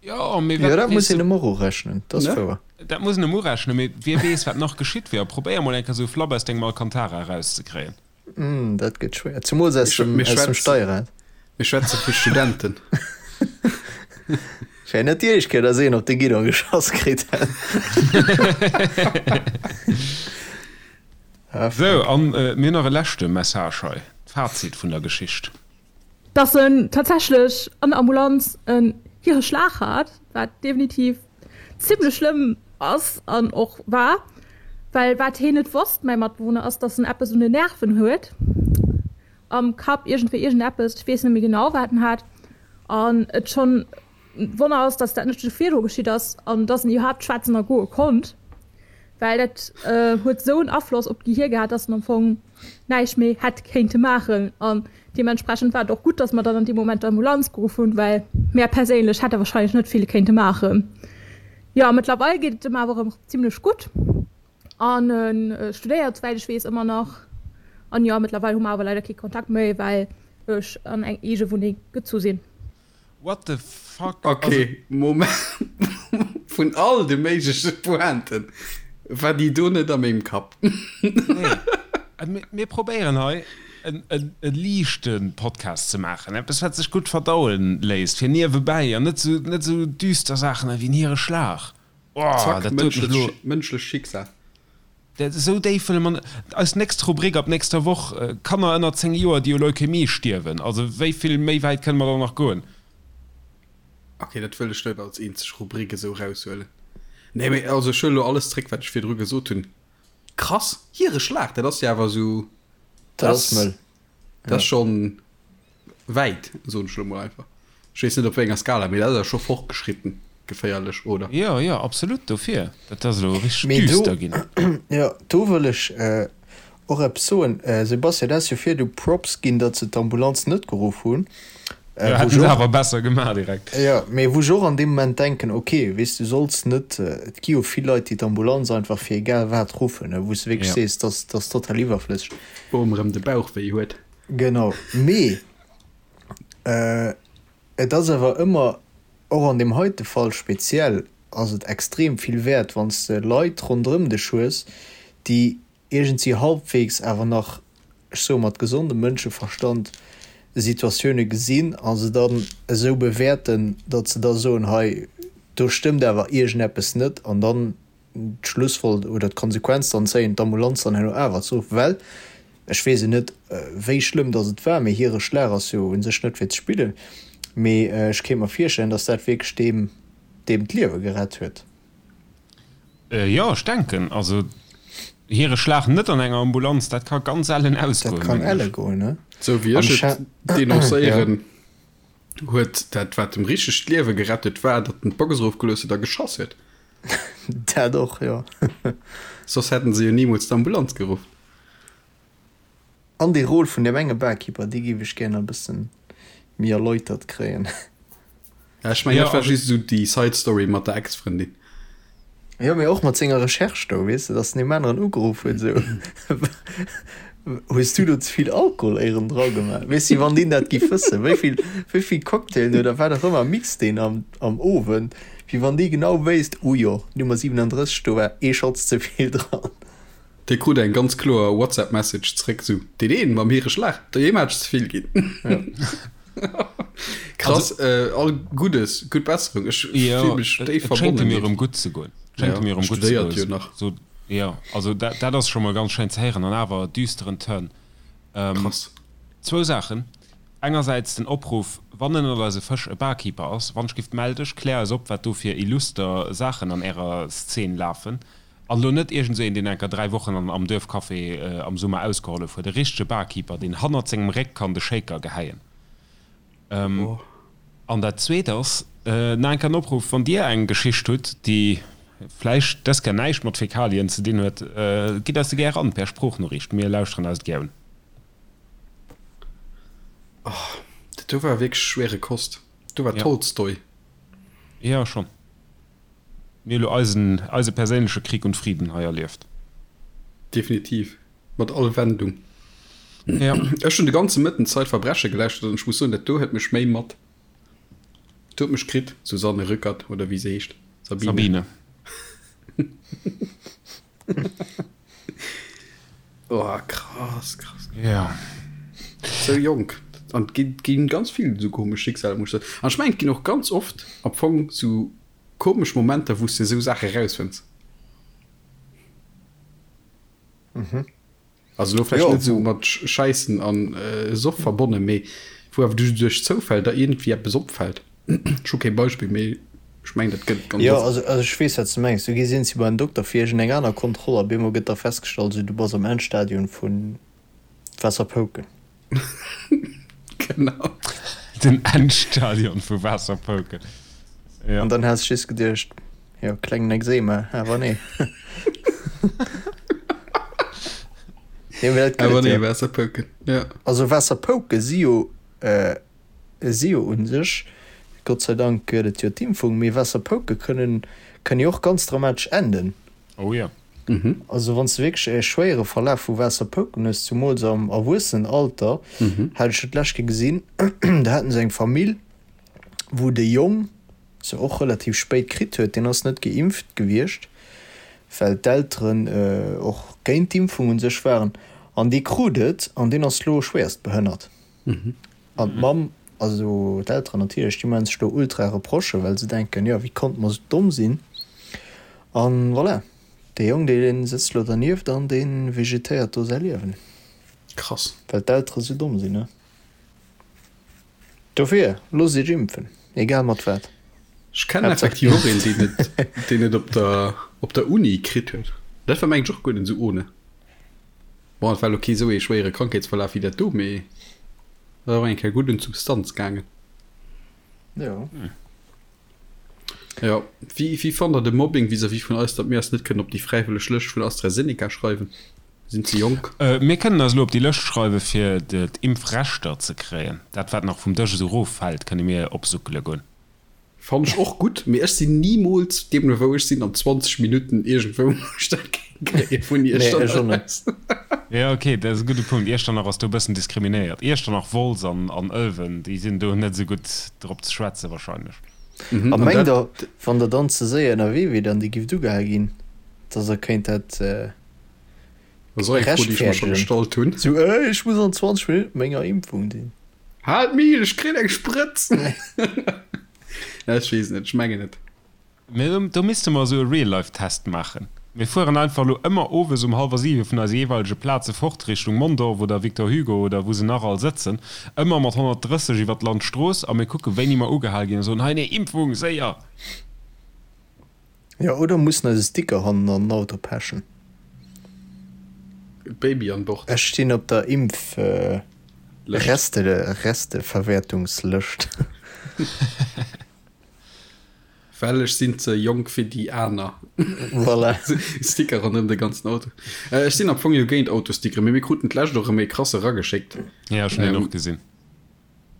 Jo, mee Jo, wat dat weess muss een de. em och urechnen, dat ass Ne? wouer. Dat muss een em urechnen, mee wie weess, wat nach geschitt wier. A probéier mol eng Kéier esou e Flapp aus dengem Alcantara erauszekréien. Mm, dat gëtt schwéier, zemools aus dem, aus dem Steierrad. Mir schwätze vu Studenten. Wär net déi éischt Kéier, dass een op de Guidon geschoss kritt hätt. Sou, an mir hunn nach e leschte Message hei, d'Fazit vun der Geschicht. Dass en tatsächlech an der Ambulanz en Hireschlag hat, wat definitiv zimmlech schlëmm ass an och war, well wat heen net wosst, mäi Matbewunner, ass, dass en eppes un den Nerven huet, am Kapp, iergendwéi iergendeppes, ech weess net méi genau wat en hat, an et schonn e Wonner ass, dass dat net scho virdru geschitt ass an dass en iwwerhaapt schwätzen a goe konnt, well dat huet esou en Afloss op d'Gehier gehat, dass en am Fong näischt méi hätt kéinte maachen. An deementsprechend war et och gutt, dass mer dann an deem Moment d'Ambulanz geruff hunn, well mär perséinlech hätte warscheinlech net vill kéinte maachen. Jo, mëttlerweil geet et em awer erëm zimlech gutt an e studéiert, souwäit ech weess, ëmmer nach. An jo, mëttlerweil hu mer awer leider kee Kontakt méi, well ech an eng eege Wunneng gezu sinn. What the fuck? Ok, Moment, vun all de méigleche Pointen war déi do net a mengem Kapp. Nee, mir probéieren hei e liichte Podcast ze maachen, eppes wat sech gutt verdauen léisst fir niewebäi an net sou net sou düster Saachen ewéi en Hireschlag. Oh, Zack, dat doet mech elo. Mënschlech Schicksal. Dat esou déif wëlle mer net. Eis nächst Rubrik ab nächster Woch, Kanner ënner 10 Joer, déi u Leukämie stierwen. Also wéi vill méi wäit kënne mer dann nach goen? Ok, dat wëll ech net als eenzeg Rubrik esou eraushuelen. Nee, mee also ech huelen elo alles zréck, wat ech virdru gesot hunn. Krass, hire Schlag, dat ass jo awer esou, Dat ass mëll. Dat ass schonn wäit, soen ech elo mol einfach. Ech weess net op wéi enger Skala, mee dat ass awer scho fortgeschritten geféierlech, oder? Jo, jo, absolut, dofir. Dat ass elo richteg Mee do, düster ginn. jo, do wëll ech och eppes soen. Sebastian, du has jo virdu Props ginn, datt se d'Ambulanz net geruff hunn. Jo, hätten se awer besser gemaach direkt. Jo, mee wou ech och an deem Moment denken, ok, weess du solls net, et gi jo vill Leit, déi d'Ambulanz einfach fir egal wat ruffen, wou s de wierklech sees, dat ass total iwwerflësseg. Boom erëm de Bauch wéi huet. Genau, mee et ass awer ëmmer, och an deem heite Fall speziell, ass et extrem vill wäert, wann s de Leit ronderëm dech hues, déi iergendwéi halbwegs awer nach, ech soe mat gesondem Mënscheverstand, Situatioune gesinn a se dann esou bewäerten, datt se da soen, hei do stëmmt awer iergendeppes net an dann d'Schlussfol oder d'Konsequenz dann zéien, d'Ambulanz dann herno awer ze ruffen, well ech weess et net, wéi schlëmm datt et war, mee hire Schlag ass jo u sech net fir ze spillen, mee ech kéint mer virstellen, datt dat wierklech deem deem d'Liewe gerett huet. Jo, ech denken, also hire Schlag net an enger Ambulanz, dat ka ganz ellen ausgoen, Dat kann elle goen, ne? Sou wéi ech et denoncéieren, huet dat, wat em richteg d'Liewe gerett huet, war, datt en d'Box erofgelooss huet a geschoss huet. Dat och, jo. Soss hätten se jo nimools d'Ambulanz geruff. An déi Rôle vun deem enge Barkeeper, déi géif ech gär nach e bëssen méi erläutert kréien. Ja, ech mengen, dat war just esou déi Side Story mat der Ex-Frëndin. Jo, mee och mat senger Recherche do, weess de, dass en deem aneren ugeruff huet, esou, Hues du do ze vill Alkohol éieren dra gemaach? Weess de, wann deen dat giff wëssen, wéi vill, wéi vill Cocktailen oder wat och ëmmer mixt deen am, am Owend, wéi wann dee genau wéisst, Oh jo, Nummer 37, do war ee Schotz ze vill dran. Dee krut eng ganz kloer WhatsApp Message zréck, sou, Deen een mam hire Schlag, deem hat ech ze vill ginn. Krass, all Guddes, gutt Besserung, ech fill mech déif verbonnen. Et schéngt em jo erëm gutt ze goen. Schéngt em jo erëm gutt ze goen. Studéiert jo nach. So, jo, also dat, dat ass scho mol ganz schéin ze héieren an awer düsteren Turn. Krass. Zwou Saachen, Engersäits den Opruff, wann ënnert eise Fësch e Barkeeper ass, wannschgift mell dech, klär eis op, wat do fir illuster Saachen an ärer Szene lafen. An elo net iergend esou een, deen enker 3 Wochen an am Duerfcafé am Summer ausgehollef huet, e richtege Barkeeper, deen hannert sengem Réck kann de Shaker gehäien. An dat Zweet ass, nach eng Kéier en Opruff, Wann Dir eng Geschicht hutt, déi vläicht dës Kéier näischt mat Fäkalien ze dinn huet, gitt eis se gär eran per Sproochnoriicht, mir lauschteren eis et gär un. Oh, dat do war wierklech schwere Kost. Do war Tolstoi. Jo, schonn. Mir hu lo eisen, eise perséinleche Krieg und Frieden hei erlieft. Definitiv. Mat all Wendung. Ja. Ech hunn de ganze Mëtten Zeitverbrechen gelauschtert an ech muss soen, dat do huet mech méi mat. Dat huet mech kritt, Susanne Rückert oder wéi se heescht. Sabine. Sabine. Oh, krass, krass. Ja. Sou jonk. An et gi ginn ganz vill esou komesch Schicksaler, muss ech soen. An ech mengen, et ginn och ganz oft am Fong sou komesch Momenter, wou s de esou Saache rausfënns. Also elo vläicht net esou mat Schäissen an Soff verbonnen, mee wou awer du duerch Zoufäll der iergendwéi eppes opfält. Ech hu kee Beispill, mee ech mengen, dat gëtt et ganz Jo, oft. also ech weess, wat s de mengs. Du gees iergendwéi bei den Dokter fir iergendeng aner Kontroll a bemol gëtt da festgestallt, esou, du bass am Endstadium vu Waasserpouken. Genau. Den Endstadion vu Waasserpouken. Ja. An dann has ech just geduecht, jo, klengen Ekzema, awer nee. Nee, mee dat gëtt Awer et nee, jo. Waasserpouken, ja. Also Waasserpouke si jo, si jo u sech, Gott sei Dank gëtt et jo d'Impfung, mee Waasserpouke kënnen, kënnen jo och ganz dramatesch enden. Oh jo. Also wann s de wierklech e schwéiere Verlaf vu Waasserpouken hues, zumools am Erwuessenenalter, hat ech dat d'lescht Kéier gesinn, do haten se eng Famill, wou de Jong se och relativ spéit kritt huet, deen ass net geimpft gewiescht, well d'Elteren och géint d'Impfung un sech waren, an dee krut et an deen ass lo schwéierst behënnert. An d'Mamm, also d'Elteren natierlech, déi maachen sech do ultra Reprochen, well se denken, jo wéi konnte mer esou domm sinn. An voilà, dee Jong dee sëtzt lo dernieft an dee vegetéiert do säi Liewen. Krass. Well d'Eltere sou domm sinn, ne? Dofir, loosst iech impfen, egal mat wat. Ech kennen effektiv och een, deen et, deen et op der, op der Uni kritt huet. Dat war mengen ech och guer net esou ohne. Bon, et war elo kee sou ee schwéiere Krankheetsverlaf wéi dat do, mee et ass och eng Kéier gutt un d'Substanz gaangen. Jo. Jo. Wéi, wéi fannt der de Mobbing vis-à-vis vun eis, datt mir eis net kënnen op déi fräiwëlleg Lëscht vun AstraZeneca schreiwen? Mir sinn ze jonk. Mir kënnen eis elo op déi Lëscht schreiwe fir d'Impfrechter ze kréien. Dat wat nach vum Dësch esou eroffält, kënne mir opsuckele goen. Fannen ech och gutt, mee ech sinn nimools, deemno wou ech sinn, an 20 Minutten iergendwou wou ech dat géing kréien vun Nee, ech och Iechternach net. aus. Jo ok, dat ass e gudde Punkt. Iechternach ass do e bëssen diskriminéiert. Iechternach, Wolz an an Ëlwen, déi sinn do net esou gutt drop ze schwätzen wahrscheinlech. Mhm, A an mengt dat. der, wann der dann ze séier ënnerwee wier an dir gifft ugehal ginn, dass der kéint dat Dat ass och eng Fro, déi ech mer scho rechtfäerdegen? gestallt hunn. Sou, Ey, ech muss an 20 Minutten menger Impfung sinn. Haalt Mil, ech kritt eng Sprëtz! Ech weess net, ech mengen net. Mee do misste mer esou e Real-Life-Test maachen. Mir fueren einfach elo ëmmer owes um hallwer siwe vun eise jeeweilege Plaze fort Richtung Mondorf oder Victor Hugo oder wou se nach all sëtzen, ëmmer mat 130 iwwer d'Landstrooss a mir kucke wéini mer ugehal ginn a soen, Hei, nee, Impfung, séier! Jo, oder mussen eis e Sticker hannen an den Auto pechen. Baby an Bord. Ech stinn op der Impf Resteverwäertungslëscht. Well ech sinn ze jonk fir déi aner. Voilà. Sticker ronderëm de ganzen Auto. Ech sinn am Fong jo géint Autostickeren, mee mir kruten d'lescht och erëm ee krasse erageschéckt. Jo, ech hunn deen och gesinn.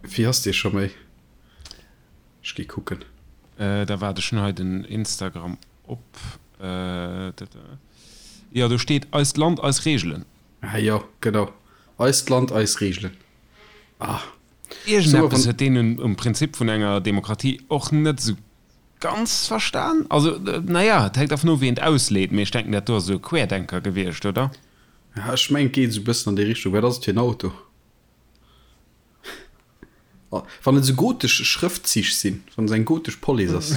Wéi ass dee scho méi? Ech gi kucken. Da waart, ech hunn hei den Instagram op. Jo, do steet Eist Land, eis Reegelen. Ah jo, genau. Eist Land, eis Reegelen. Ah. Iergendeppes huet deen um Prinzip vun enger Demokratie och net esou ganz verstan. Also, naja, et hänkt dervun of, wéi een et ausleet, mee ech denken, dat do ass esou e Querdenker gewiescht, oder? Ja, ech mengen, et geet esou e bëssen an déi Richtung. Wat ass et fir en Auto? Wann et esou gotesch Schrëftzich sinn, wann et eng gotesch Police ass,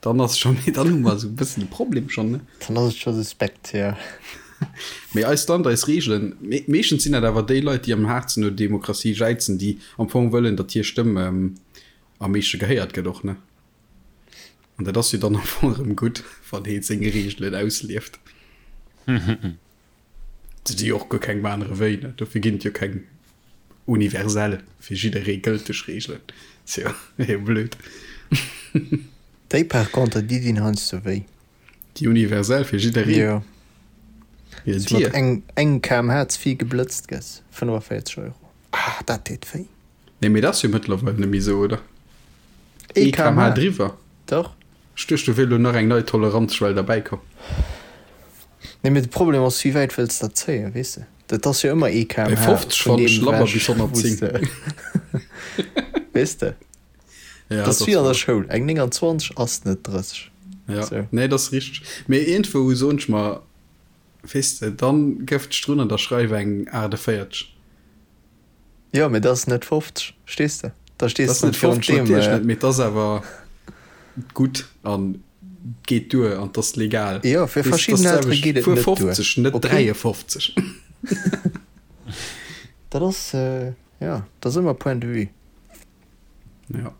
dann ass scho méi, dann hu mer esou e bëssen e Problem schonn, ne? Dann ass et scho suspekt, jo. Mee eist Land, eis Reegelen, meeschtens sinn dat awer déi Leit, déi am haartsten no Demokratie jäizen, déi am Fong wëllen, datt hir Stëmm am meeschte gehéiert gëtt och, ne? An dat ass jo dann am Fong erëm gutt, wann ee seng Reegelen auslieft. Et si jo och guer keng anere wéi, ne? Dofir ginn et jo keng universell, fir jidderee gëlteg Reegelen. Ass jo éier blöd. Déi par contre, déi dinn heiansdo wéi. Déi universell fir jidderee? Jo. Jo, Wéi s dir. mat eng, eng kmh ze vill geblëtzt gëss, 45 Euro. Ah, dat deet wéi. Nee, mee dat ass jo mëttlerweil net méi esou, oder? Ee Ee kmh kmh. driwwer? Dach. Ech duecht, do wier elo nach eng nei Toleranzschwell derbäi komm. Nee, mee de Problem ass, wéi wäit wëlls de dat zéien, weess de? Dat ass jo ëmmer ee Bei kmh 50 vun fannen ech deem labber ewech, bis wou s 110. de, weess de? Ja, Dat ass dat wéi ass an der wahr. Schoul, eng 29 ass net 30. Ja, Sou. nee, dat ass richteg. Mee iergendwou soen ech mer, weess de, dann gëff dech drun an da schreif eng 48. Jo, mee dat ass net 50, verstees de? Da stees de net virun deem. Dat ass net 50, natierlech net, mee et ass awer gutt an geet duer an et ass legal. Jo, fir verschidden Eltere geet et net duer. 50, net 53. Dat ass, jo, dat ass ëmmer Point de vue. Jo.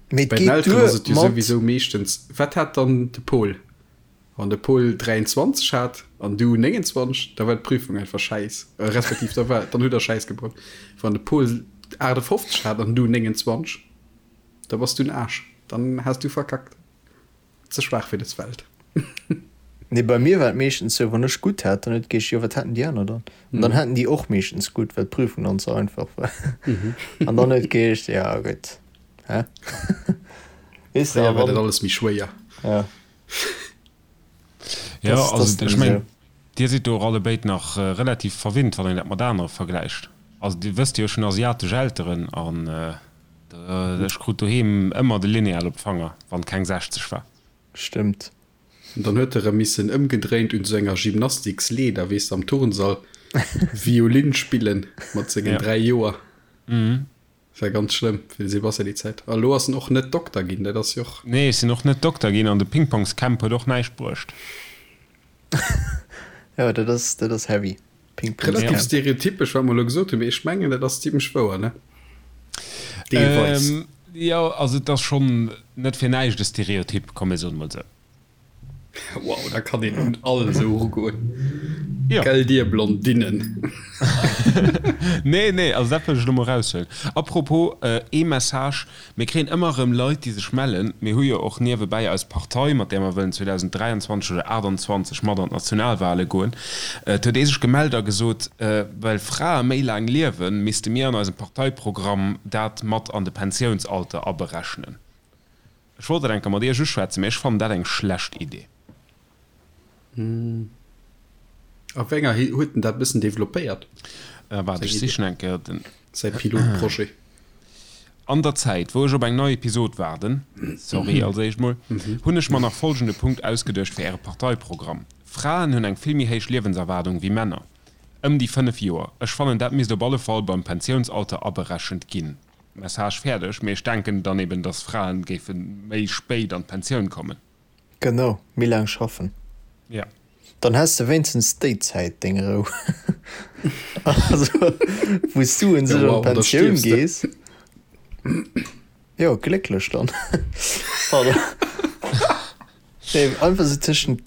Mee et Bei den geet Elteren duer ass et jo mat. souwisou meeschtens, Wat hat dann de Paul? Wann de Paul 23 hat an du 29, da war d'Prüfung einfach schäiss, respektiv da war, dann hutt der Schäiss gebaut. Wann de Paul 58 hat an du 29, da bass du en Aarsch, dann has du verkackt. Ze schwaach fir des Welt. Nee, bei mir war et meeschtens sou, wann ech gutt hat, dann huet et geheescht, jo wat haten déi aner dann? An dann haten déi och meeschtens gutt, well d'Prüfung dann ze einfach war. An dann huet et geheescht, ja gutt, hä? Weess de, a Fréier war dat wann, alles méi schwéier. ja. Ja, Das, also das ech meng, Dir sidd do och allebéid nach relativ verwinnt, wann een dat mat anere vergläicht. Also Dir wësst jo, ech hunn asiatesch Elteren an ech krut doheem ëmmer de Lineal op d'Fanger, wann keng 60 war. Stëmmt. An dann huet e rëm missen ëmgedréint un sou enger Gymnastiksleeder, weess de, am Turnsall Violin spillen mat sengen Ja. 3 Joer. War ganz schlëmm fir de Sebastian déi Zäit. A lo ass en och net Dokter ginn, dat ass jo och. Nee, ech sinn och net Dokter ginn an de Pingpongscamp huet och näischt bruecht. Jo, dat ass, dat ass heavy. Relativ Pingpongscamp. stereotypesch, wat mer elo gesot hunn, mee ech mengen, dat ass zimlech wouer, ne? Deelweis. Jo, also et ass schonn net fir näischt e Stereotyp, komm mir soen emol esou. Wow, da kann een un all esou erugoen. Jo. Gell dir Blondinen. Nee, nee, also dat wëll ech elo mol eraushuelen. Apropos, ee Message, Mir kréien ëmmer erëm Leit, déi sech mellen. Mir hu jo och niewebäi eis Partei, mat där mer wëllen 2023 oder 28 mat an d'Nationalwale goen. Et huet ee sech gemellt a gesot, well Frae méi laang liewen, misste mir an eisem Parteiprogramm dat mat an de Pensiounsalter aberechnen. Ech wollt dat eng Kéier mat Iech uschwätzen, mee ech fannen dat eng schlecht Idee. A wéi enger huet en dat bëssen developpéiert? Waart, ech sichen eng Kéier den. Säi Pilotprojet. An der Zäit, wou ech op eng nei Episod waarden, sorry als éischt mol, hunn ech mer nach folgende Punkt ausgeduecht fir äre Parteiprogramm, Fraen hunn eng vill méi héich Liewenserwaardung wéi Männer, ëm déi 5 Joer. Ech fannen, dat misst op alle Fall beim Pensiounsalter aberechent ginn. Message fäerdeg, mee ech denken dann eben, dass Fraen géife méi spéit an d'Pensioun kommen. Genau, méi laang schaffen. Ja. Dann häss de wéinstens déi Zäit deng Rou. Also wou s du un sech an d'Pensioun gees. Jo, glécklech dann. Pardon. Nee, einfach sou tëschent,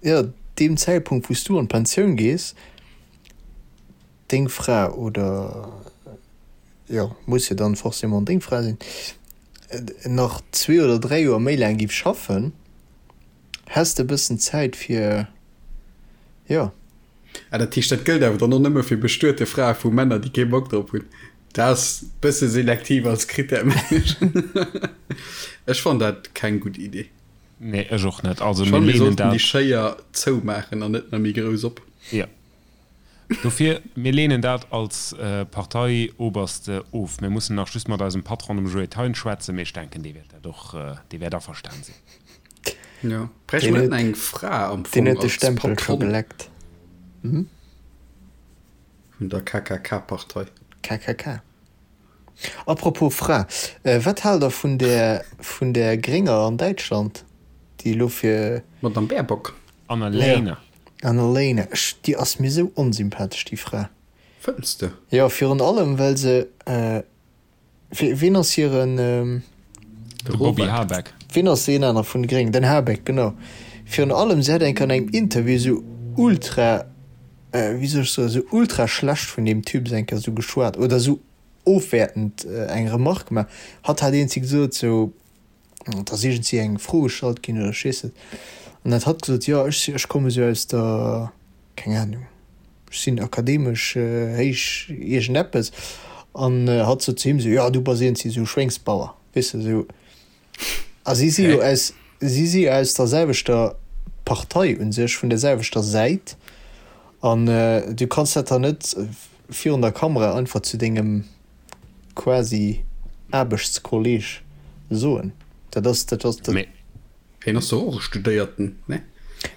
jo, deem Zäitpunkt wou s du an d'Pensioun gees, deng Fra oder, jo, muss jo dann forcément deng Fra sinn, nach zwee oder dräi Joer méi laang giff schaffen, häss de e bëssen Zäit fir, jo. Ah, dat heescht, dat gëllt awer dann och nëmme fir bestuete Frae vu Männer, déi kee Bock drop hunn. Dat ass bësse selektiv als Krittär, mengen ech. Ech fannen dat keng gutt Idee. Nee, ech och net. Also Ech mir fannen, mir leenen sollten déi dat. Schéier zoumaachen an net nach méi grouss op. Jo. Dofir, mir leenen dat als Parteioberste of. Mir mussen nach just mat eisem Patron, dem Joé Thein, schwätzen, mee ech denken, dee wäert dat och, dee wäert averstan sinn. Jo, bräichte mer net eng Fra am Deen Fong huet de als Stempel scho Patron geleckt. vun der KKK-Partei? KKK. Apropos Fra, wat haalt der vun där, vun där Grénger an Däitschland, déi elo fir. D'Madame Baerbock? Annalena. Annalena, ech, déi ass mir sou onsympathesch, déi Fra. Fënns de? Jo, virun allem well se, wien ass hiren. De Bobby Habeck. Wien ass deen aner vun de Gréngen? Den Habeck, genau. Virun allem, se hat eng Kéier an engem Interview sou ultra, wéi soll ech soen, sou ultra schlecht vun deem Typ eng Kéier sou geschwat oder sou ofwäertend eng Remark gemaach. Hatt hat iergendwéi gesot, sou, Et ass iergendwéi eng Fro gestallt ginn oder ech weess net. An dat hatt gesot, jo ech ech komme sou aus der, keng Ahnung, ech sinn akademesch héich iergendeppes. An hatt sot zu him sou, jo du bass iergendwéi sou Schwéngsbauer, weess de sou. A si si jo aus, si si jo aus der selwechter Partei u sech, vun der selwechter Säit. An du kanns dat dann net virun der Kamera einfach zu dengem quasi Aarbechtskolleg soen. Dat ass, dat ass, dat. Mee. Hien ass doch och e Studéierten, ne?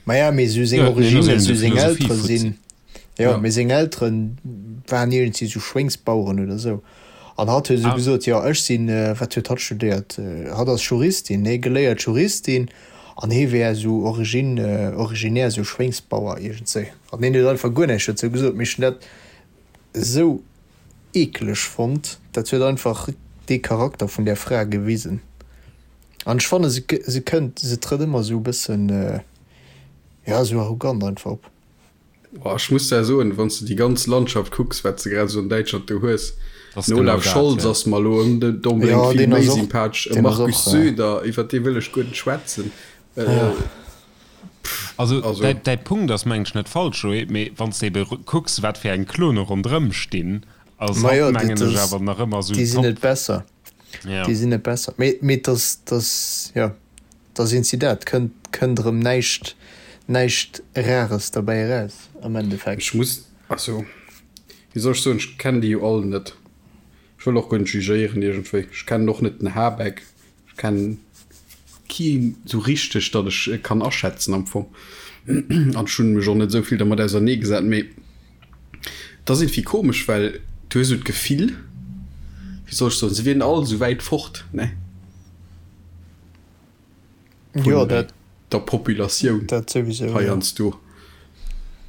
Maja, mee sou seng Jo, hien ass Originnen, eben sou de seng Eltere Philosophie-Fuzzi. sinn. Jo, mee seng Elteren waren iergendwéi sou Schwéngsbaueren oder sou. An hatt huet esou gesot, jo ech sinn, wat huet hatt studéiert? Hatt ass Juristin, nee, geléiert Juristin an hie wär esou origine, originaire esou Schwéngsbauer iergendswéi. An hien huet einfach guer näischt dozou gesot. Mee ech hunn dat esou eekeleg fonnt. Dat huet einfach dee Charakter vun där Fra gewisen. An ech fanne se, se kënnt, se trëtt ëmmer esou e bëssen, jo, esou arrogant einfach op. Boah, ech muss der soen, wann s de déi ganz Landschaft kucks, wat s de grad esou an Däitschland do hues, Das den genau Olaf dat, Scholz ja. ass mer elo onbedéngt Ja, vill deen méi ass och, sympathesch, e deen ass Markus och, Söder, iwwer dee wëll ech guer net schwätzen. ja. Also, Also. däi, däi Punkt ass, mengen ech, net falsch, Joé, mee wann s de ebe kucks, wat fir eng Klone ronderëm stinn, ass Ma hatt, jo, mengen dat ech, ass, awer nach ëmmer esou déi sinn top. net besser. Ja. Déi sinn net besser. Mee, mee et ass, et ass, jo. Da sinn si dat. Kënnt, kënnt erëm näischt, näischt Rares derbäi eraus am Endeffekt. Ech muss, also, wéi soll ech soen, ech kennen déi jo all net. Ech wëll och guer net jugéieren iergendwéi. Ech kennen och net den Habeck. Ech kennen keen esou richteg, datt ech e kann aschätzen am Fong. An ech hunn mech och net esou vill dermat auserneegesat. Mee et ass iergendwéi komesch, well du hues esou d'Gefill, wéi soll ech soen, se wieren all esou wäit fort, ne? Jo, dat, der Populatioun dat souwisou, jo. heiansdo.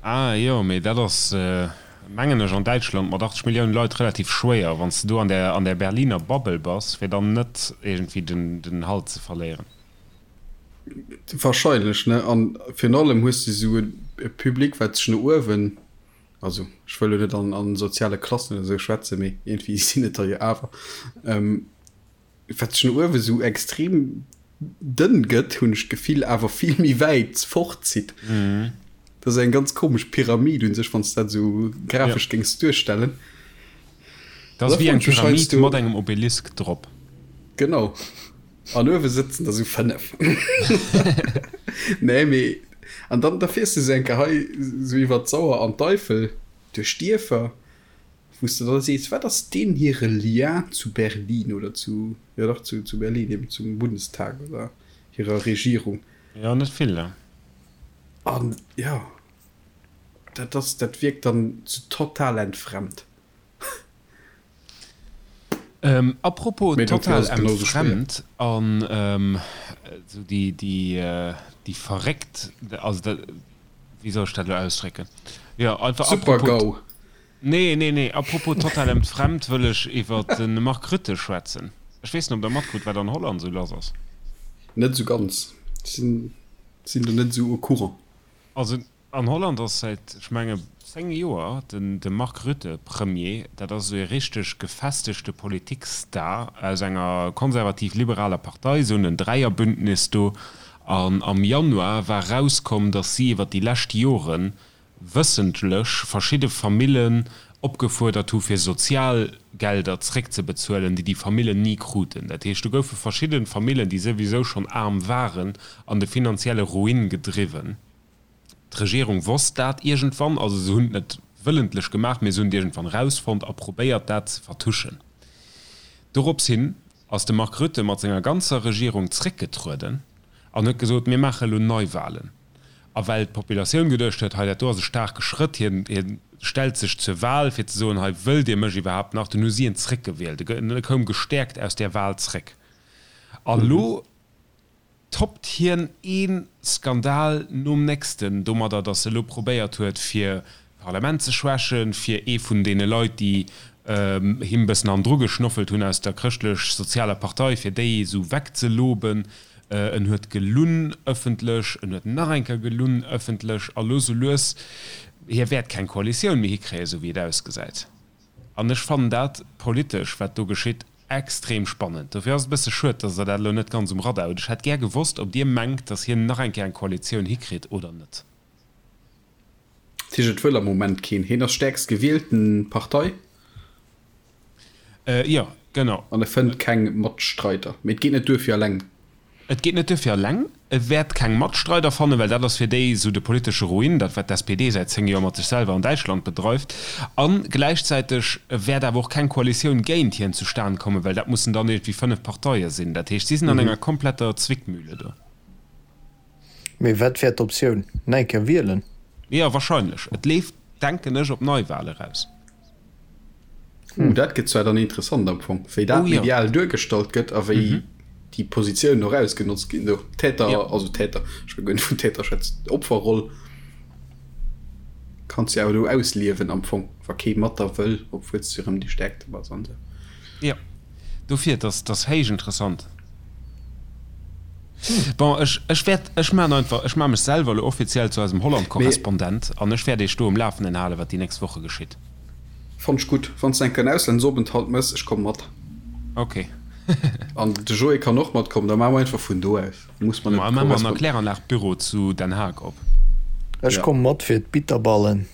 Ah jo, mee dat ass, mengen ech, an Däitschland mat 80 Milliounen Leit relativ schwéier, wann s de do an där, an där Berliner Bubble bass, fir dann net iergendwéi den, den Halt ze verléieren. Wahrscheinlech, ne? An virun allem hues de esou e Public, wat sech no uewen, also ech wëll elo net an, an soziale Klassen oder esou schwätzen, mee iergendwéi sinn et der jo awer, Wat sech no uewe sou extrem dënn gëtt, hunn ech d'Gefill, awer vill méi wäit fortzitt. Dat ass eng ganz komesch Pyramid un sech, wann s de dat esou grafesch géings duerstellen. Dat ass wéi eng Pyramid mat engem Obelisk drop. Genau. An uewe sëtzen der sou 5. Nee, mee an dann da fiers de sou eng Kéier hei sou iwwer d'Sauer an d'Eifel duerch Dierfer. Wou s de da sees, wat ass deen hire Lien zu Berlin oder zu, jo dach, zu, zu Berlin eben, zum Bundestag oder hirer Regierung? Jo, net vill, ne? An jo, dat ass, dat wierkt dann sou total entfremd. Apropos Mee dofir total ass et genauso schwéier. entfremd an esou déi, déi, déi verréckt, also dat, wéi soll ech dat elo ausdrécken? Jo, einfach apropos. Super-GAU. Nee, nee, nee, apropos total entfremd wëll ech iwwer de Mark Rutte schwätzen. Ech weess net, ob Der matkrut, wat an Holland esou lass ass. Net esou ganz. Ech sinn, sinn do net esou au courant. Also an Holland ass säit, ech menge 10 Joer, den de Mark Rutte Premier. Dat ass esou ee richteg gefestegte Politikstar aus enger konservativ-liberaler Partei, esou en Dräierbündnis do. An am Januar war erauskomm, datt si iwwer déi lescht Joren wëssentlech verschidde Famillen opgefuerdert hu fir Sozialgelder zréckzebezuelen, déi déi Famillen ni kruten. Dat heescht, do goufe verschidde Famillen, déi souwisou schonn aarm waren, an de finanzielle Ruin gedriwwen. D'Regierung wosst dat iergendwann, also se hunn et net wëllentlech gemaach, mee se hunn et iergendwann erausfonnt a probéiert dat ze vertuschen. Dorops hin ass de Mark Rutte mat senger ganzer Regierung zréckgetrueden an huet gesot, mir maache elo Neiwahlen. A well d'Populatioun geduecht huet, hei dat do ass e staarke Schrëtt, hien, hien stellt sech zur Wahl, fir ze soen, hei wëllt Dir mech iwwerhaapt nach, dunn hu si en zréckgewielt. E koum gestäerkt aus där Wahl zréck. An elo toppt hien ee Skandal nom nächsten domadder, datt e elo probéiert huet, fir d'Parlament ze schwächen, fir ee vun deene Leit, déi him bëssen hannendru geschnoffelt hunn aus der Chrëschtlech-Sozialer Partei, fir déi esou wegzeloben. En huet gelunn ëffentlech, en huet nach eng Kéier gelunn ëffentlech a lo sou lues, hie wäert keng Koalitioun méi hikréien, esou wéi et ausgesäit. An ech fannen dat politesch, wat do geschitt, extrem spannend. Dofir ass et e bësse schued, datt Der dat elo net ganz um Radar hutt. Ech hätt gär gewosst, ob Dir mengt, datt hien nach eng Kéier eng Koalitioun hikritt oder net. Dat heescht, et wëll am Moment keen. Hien ass stäerkst gewielten Partei. Jo, genau. An e fënnt keng Matstreider. Mee et geet net duer fir alleng. Et geet net duer fir alleng. E wäert keng Matstreider fannen, well dat ass fir déi esou de politesche Ruin, dat wat d'SPD säit 10 Joer mat sech selwer an Däitschland bedreift. A gläichzäiteg wäert awer och keng Koalitioun géint hien zustan kommen, well dat mussen dann iergendwéi 5 Parteie sinn. Dat heescht, si sinn an enger kompletter Zwickmühle do. Mee wat wär d'Optioun? Nach eng Kéier wielen? Jo, wahrscheinlech. Et leeft. Denken ech op Neiwahl eraus. Uh, dat gëtt zwar dann interessant am Fong, wéi dat oh, ja. medial duergestallt gëtt a wéi mhm. déi Positiounen och ausgenotzt ginn. Do Täter, ja. also Täter, ech wëll guer net vun Täter schwätzen, Opferroll kanns du awer do ausliewen am Fong, wa kee mat der wëll, obwuel s du erëm déi Stäerkte bass an esou. Ja, dofir, dat ass héich interessant. Bon, ech, ech wäert, ech maachen einfach, ech maache mech selwer elo offiziell zu eisem Holland-Korrespondent an ech wäert Iech do um Lafenden halen, wat déi nächst Woche geschitt. Fannt ech gutt. Wann s de eng Kéier en Auslandsopenthalt mëss, ech komme mat. Ok. An de Joé kann och matkommen, da maache mer einfach vun do aus. Muss mer net Maache mer en Erkläranlag-Büro zu Den Haag op. Ech komme mat fir d'Bitterballen.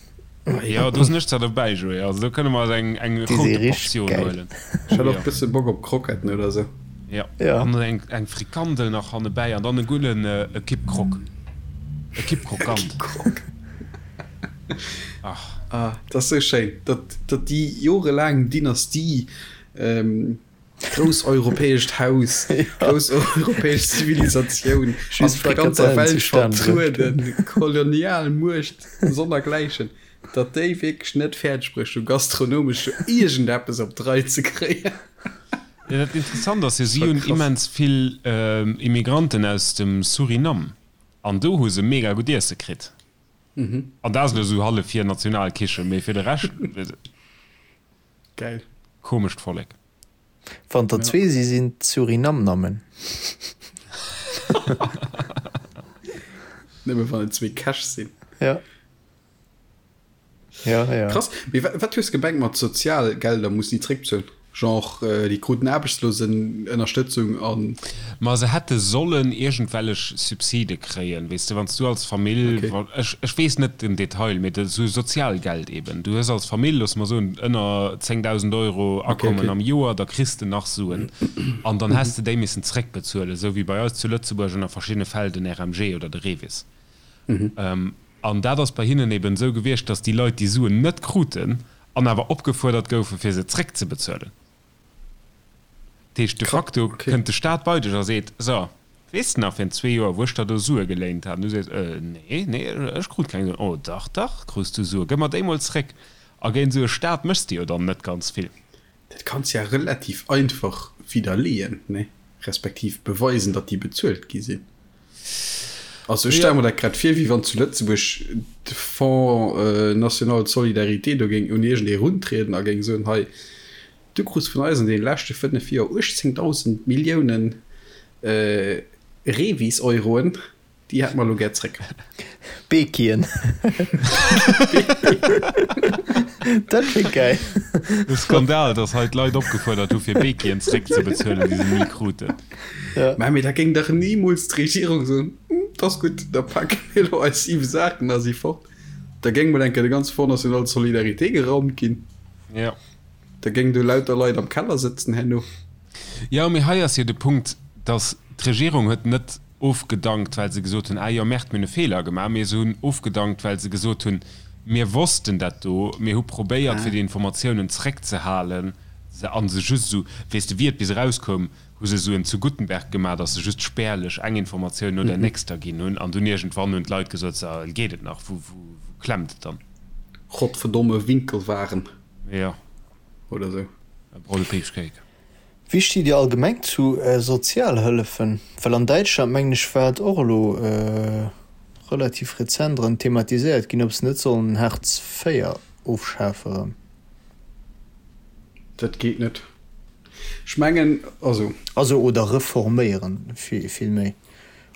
Jo, do sinn ech zwar dobäi, Joé. Also do kënne mer eis eng, eng Déi si route richteg Portioun gäil. huelen. Ech hätt och e bësse Bock op Kroketten oder sou. Jo, Ja. an eng, eng Frikandel nach hannebäi an dann e gudden e Kipp Croque. E Kipp E Krokant. Kipp Croque. Ach. Ah, dat ass sou schéin, datt, datt déi jorelaang Dynastie, Grouss europäescht Haus, grouss europäesch Zivilisatioun, an der ganzer Welt vertrueden, Kolonialmuecht sonnergläichen, datt déi wierklech net fäerdeg brécht, do gastronomesch do iergendeppes op d'Rei ze kréien. Jo, dat Interessant ass jo, si hunn immens vill Immigranten aus dem Suriname, an do hu se mega gutt Iesse kritt. An dat ass elo esou hallef hir Nationalkichen, mee fir de Rescht. Geil. Komescht Vollek. Wann der zwee si sinn d'Surinamnammen. Nëmme wann et zwee Käch sinn. Ja. Ja, ja. Krass. Mee wat hues gemengt mat Sozialgelder mussen déi zréckbezuelen? Genre déi kruten Aarbechtslosenënnerstëtzung an. Ma se hätte sollen iergendwellech Subside kréien, weess de, wann s du als Famill, ech ech weess net den Detail, mee esou Sozialgeld eben, du hues als Famill, loosse mer soen, ënner 10.000 Euro Akommen am Joer, da kriss de nach Suen an dann häss de déi missen zréckbezuelen, esou wéi bei eis zu Lëtzebuerg ënner verschiddene Fäll den RMG oder de REVIS. An dat ass bei hinnen eben esou gewiescht, datt déi Leit déi Suen net kruten an awer opgefuerdert goufen, fir se zréckzebezuelen. Dat heescht, de facto kënnt de Staat bei dech a seet, So, weess de nach, virun zwee Joer, wou ech der do Sue geléint hat? An du sees, Äh, nee, nee, ech krut keng Suen. Oh, dach, dach, krus du Sue, gëff mer déi mol zréck. A géint esou e Staat méchs de jo dann net ganz vill. Dat kanns ja relativ einfach widderleeën, nee? Respektiv beweisen, datt déi bezuelt gi sinn. Also ech stelle mer dat grad vir, wéi wann zu Lëtzebuerg de Fonds national de solidarité do géing un iergendee runtrieden a géing soen, hei, du krus vun eis an deene leschte 5 Joer 18.000 Milliounen Revis-Euroen, déi hätte mer elo gär zréck. Beekien. Dat wier gäil. De Skandal, datt hei d'Leit opgefuerdert hu fir Beekien zréckzebezuelen, déi se ni kruten. Ja. Mä mee da géing dach nimools d'Regierung soen, 't ass gutt, da pake mir elo eis 7 Saachen a si fort. Da géing mol eng Kéier de ganze Fonds national de solidarité geraumt ginn. Ja. Da géing do lauter Leit am Keller sëtzen herno. Jo, mee hei ass jo de Punkt, datt d'Regierung huet net ofgedankt, well se gesot hunn, ah jo, Merde, mir hunn e Feeler gemaach, mee se hunn ofgedankt, well se gesot hunn, mir wossten dat do, mir hu probéiert, fir déi Informatiounen zréckzehalen a se just esou, weess de, wéi et bis erauskoum, hu se esou en zu Guttenberg gemaach, datt se just spärlech eng Informatioun no der nächster ginn hunn an dunn iergendwann hunn d'Leit gesot, so, geet et nach, wou, wou, wou klemmt et dann? Godverdomme Winkelwaren. Jo. Oder esou. E Brolle Peachcake. Wéi stitt Dir allgemeng zu Sozialhëllefen? Well an Däitschland, mengen ech, war et och elo relativ rezent erëm thematiséiert ginn, ob se net sollen Hartz IV ofschafe erëm. Dat geet net. Ech mengen, also. Also, oder reforméieren vill méi.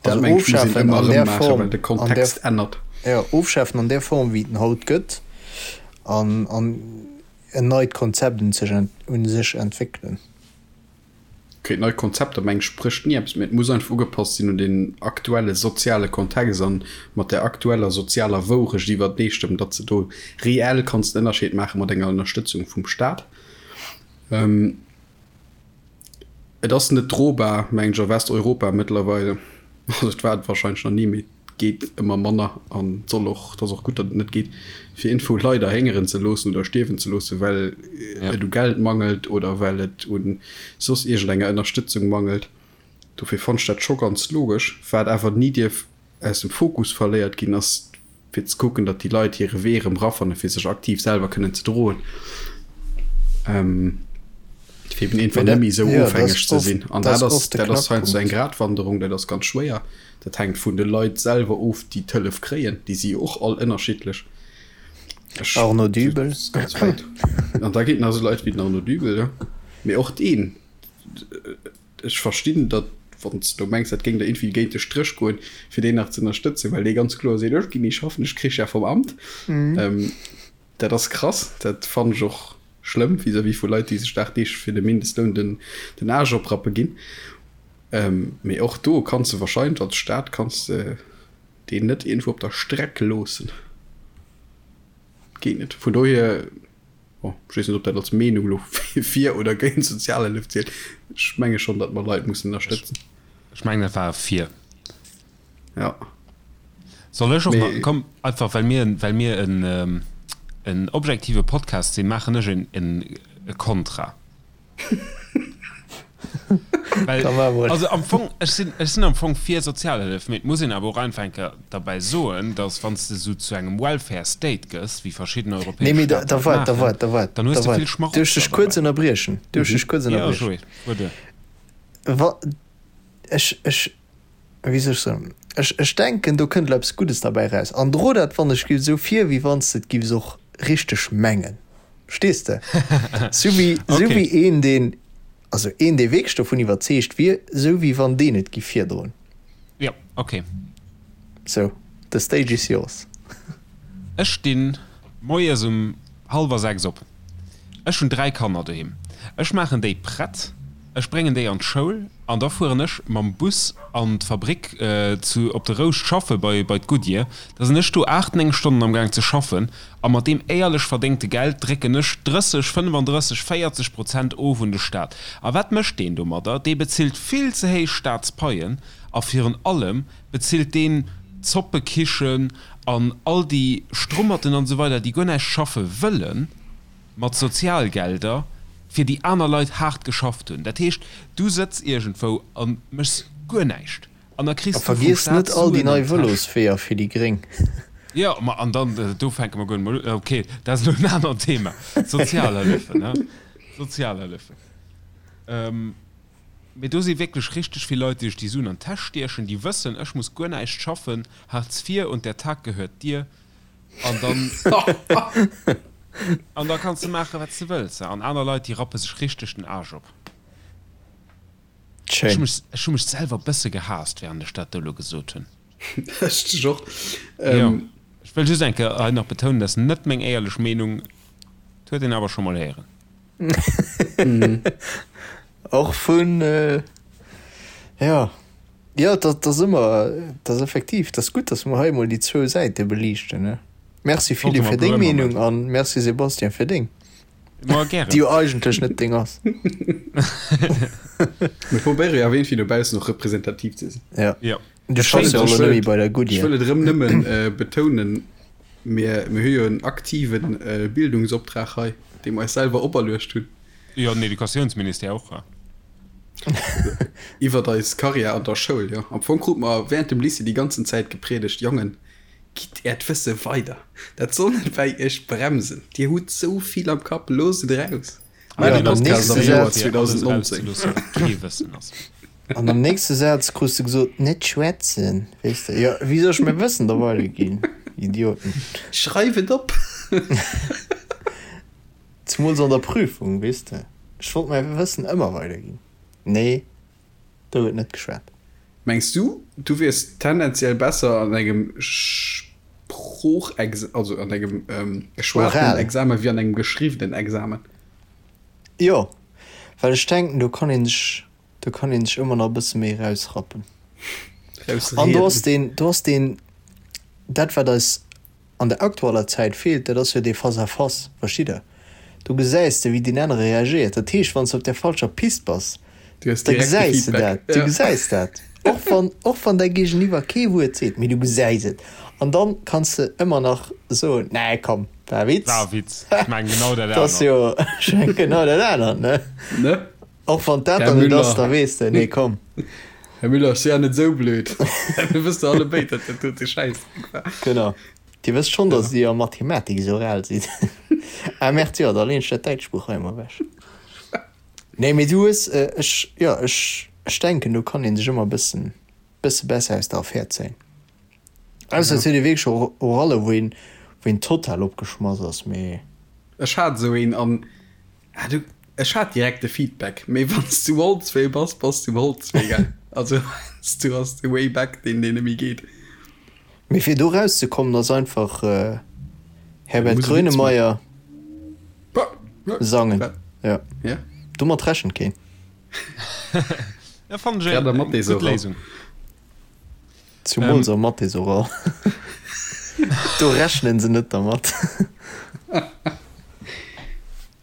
Dat Also mengen ech, muss een ofschafen ëmmer an erëm där maachen, Form, well de an där, Kontext ännert. jo, ofschafen an där Form, wéi et en haut gëtt, an, an en neit Konzept un sech, un sech entwéckelen. Okay, nei Konzepter, mengen ech, sprécht ni eppes, mä et muss einfach ugepasst sinn un den aktuelle soziale Kontext an mat der aktueller sozialer Wourecht iwwerteestëmmen, datt s de do reell kanns den Ënnerscheed maache mat enger Ënnerstëtzung vum Staat. Et ass net drobar, mengen ech, a Westeuropa mëttlerweile. Also et war et wahrscheinlech nach ni, mee et geet ëmmer manner an et soll och, et ass och gutt, datt et net geet, fir iergendwou Leit erhéngeren ze loossen oder stierwen ze loossen, well et u Geld mangelt oder well et u soss iergendenger Ënnerstëtzung mangelt. Dofir fonnt ech dat scho ganz logesch. Wat awer ni dierf aus dem Fokus verléiert ginn, ass. Fir ze kucken, datt déi Leit hire Wee erëm rafannen, fir sech aktiv selwer kënnen ze droen. Fir eben einfach net méi esou ofhängeg ze sinn. An dat ass, dat ass heiansdo eng Gratwanderung, dat ass ganz schwéier. Dat hänkt vun de Leit selwer of, déi d'Hëllef kréien. Déi si jo och all ënnerschiddlech. Arnaud Dübel. An da ginn et nach esou Leit wéi den Arnaud Dübel, jo. Mee och deen, ech verstinn, datt, wann s de do mengs, dat géing der iergendwéi géint de Stréch goen, fir deen nach ze ënnerstëtzen, well dee ganz kloer seet, ech ginn ni schaffen, ech krich ja vum Amt. Dat ass krass, dat fannen ech och schlëmm vis-à-vis vu Leit, déi sech dagdeeglech fir de Mindestloun den, den Aarsch oprappe ginn. Mee och do kanns de wahrscheinlech als Staat kanns de deen net iergendwou op der Streck loossen. Geet net. Vun dohier, bon, ech weess net, ob dat als Meenung elo fir oder géint Sozialhëllef zielt. Ech menge schonn, datt mer Leit mussen ënnerstëtzen. Ech mengen, dat war e fir. Ja. Soll ech och nach, komm, einfach well mir, well mir en, en objektive Podcast sinn, maachen ech en, en e Kontra. Well, also am Fong, ech sinn, ech sinn am Fong fir Sozialhëllef, mee et muss een awer och einfach eng Kéier derbäi soen, datt wann s de esou zu engem Welfare State gëss, wéi verschidden europäesch Nee, mee da, da waart, da waart, da waart, dann hues de vill Schmarotzer Duerf ech dech kuerz ënnerbriechen? Duerf ech dech kuerz ënnerbriechen? Jo, Joé, fuer duer. Wa, ech, ech, wéi soll ech soen, ech, ech denken, do kënnt elo eppes Guddes derbäi eraus. An dro dat, wann ech giff, esou vir, wéi wann s de et giffs och richteg mengen. Verstees de? Sou wéi, sou wéi een, deen, also een, dee wierklech dovun iwwerzeegt wier, sou wéi wann deen et giff virdroen. Jo, ok. Sou, the stage is yours. Ech stinn moies um hallwer 6 op. Ech hunn 3 Kanner doheem. Ech maachen déi prett, ech bréngen déi an d'Schoul an da fueren ech mam Bus an d'Fabrik zu op de Rouscht schaffe bei bei d'Goodyear. Da sinn ech do 8, 9 Stonnen am Gaang ze schaffen a mat deem éierlech verdéngte Geld drécken ech 30, 35, 40 Prozent of un de Staat. A wat mécht deen domadder? Dee bezilt vill ze héich Staatspaien a virun allem bezilt deen d'Zoppekichen an all déi Strummerten an esou weider, déi guer näischt schaffe wëllen, mat Sozialgelder, fir déi aner Leit haart geschafft hunn. Dat heescht, du sëtz iergendwou a méchs guer näischt an da kriss du vum Staat Suen an d'Täsch. A vergiess net all déi nei Vëlosweeër fir déi Gréng. Jo, ma an dann, do fänke mer guer net mol un. Ok, dat ass elo en anert Thema. Sozialhëllefen, ne? Sozialhëllefen. Mee do si wierklech richteg vill Leit, déi sech déi Suen an d'Täsch stiechen, déi wëssen, ech muss guer näischt schaffen, Hartz IV und der Tag gehört dir. An dann, an da kanns de maachen, wat s de wëlls. An aner Leit, déi rappe sech richteg den Aarsch op. Ech hu mech, ech hu mech selwer e bësse gehaasst, wärend ech dat do elo gesot hunn. Ech dech och. Jo, ech wëll just eng Kéier hei nach betounen, dat ass net meng éierlech Meenung, et huet een awer scho mol héieren. Och vun, jo, jo, dat ass ëmmer, dat ass effektiv, dat ass gutt, datt mer hei emol déi zwou Säite beliichten, ne? Merci Philippe fir deng Meenung an merci Sébastien fir deng, déi jo eigentlech net deng ass. Mir probéiere jo awer iergendwéi dobaussen och representativ ze sinn. Jo. Du schaffs jo elo net méi bei der Goodyear. Ech wëll et erëm nëmmen betounen, mir hu jo en aktive Bildungsoptrag hei, dee mer eis selwer operluecht hunn. Jo, den Educatiounsministère och. Iwwert eis Karriär an der Schoul, jo. Am Fong krute mer während dem Lycée déi ganzen Zäit gepriedegt, Jongen, gitt äert Wësse weider, dat soll net bäi iech bremsen, dir hutt sou vill am Kapp, loosst et eraus. Maach e Podcast am Joer 2019. An am nächste Saz krus de gesot, net schwätzen, weess de. Jo, wéi soll ech mäi Wëssen da weiderginn, Idioten? Schreif et op! Zemools an der Prüfung, weess de. Ech wollt mäi Wëssen ëmmer weiderginn. Nee, do gëtt net geschwat. Mengs du, du wiers tendenziell besser an engem Sproochex-, also an engem geschwatenen Examen wéi an engem geschriwwenen Examen? Jo, well ech denken, do kann een sech, do kann een sech ëmmer nach e bësse méi erausrappen. An do ass deen, do ass deen, dat wat eis an der aktueller Zäit feelt, dat ass jo dee Face à face, verstitt Der? Do gesäis de, wéi deen anere reagéiert. Dat heescht, wann s de op där falscher Pist bass, da gesäis de dat, du gesäis dat, och wann, och wann däi Géigeniwwer kee Wuert seet, mee du gesäis et. An dann kanns de ëmmer nach soen, Nee, komm, war e Witz. War e Witz. Ech mengen genau dat anert. Dat ass jo, ech mengen genau dat anert, ne? Ne? Och wann dat dann net ass, da weess de, nee, komm. Här Müller, ech si ja net esou blöd. Mir wësse alle béid, datt dat dote Schäissdreck war. Genau. Dir wësst schonn, datt Dir a Mathematik esou ral sidd. Ah merde, jo, da leen ech dat däitscht Buch hei emol ewech. Nee, mee du hues, ech, jo, ech, ech denken, do kann ee sech ëmmer e bëssen, bësse besser aus der Affär zéien. Ausser et huet ee wierklech Oralle, wou een, wou een total opgeschmass ass, mee. Ech hat esou een an Ah, du, ech hat direkt de Feedback, mee wann s du um Holzwee bass, bass du um Holzwee, gell? Also heiansdo ass de Way back deen, deen net méi geet. Mee fir do rauszekommen ass einfach Herbert Muss e Witz Grönemeyer sangen. Ja. Ja. Domat rechent keen. Ja, fannen ech Grad am eng gutt Mathés-Oral. Léisung. Zumools am Mathés-Oral. Do rechnen se net dermat.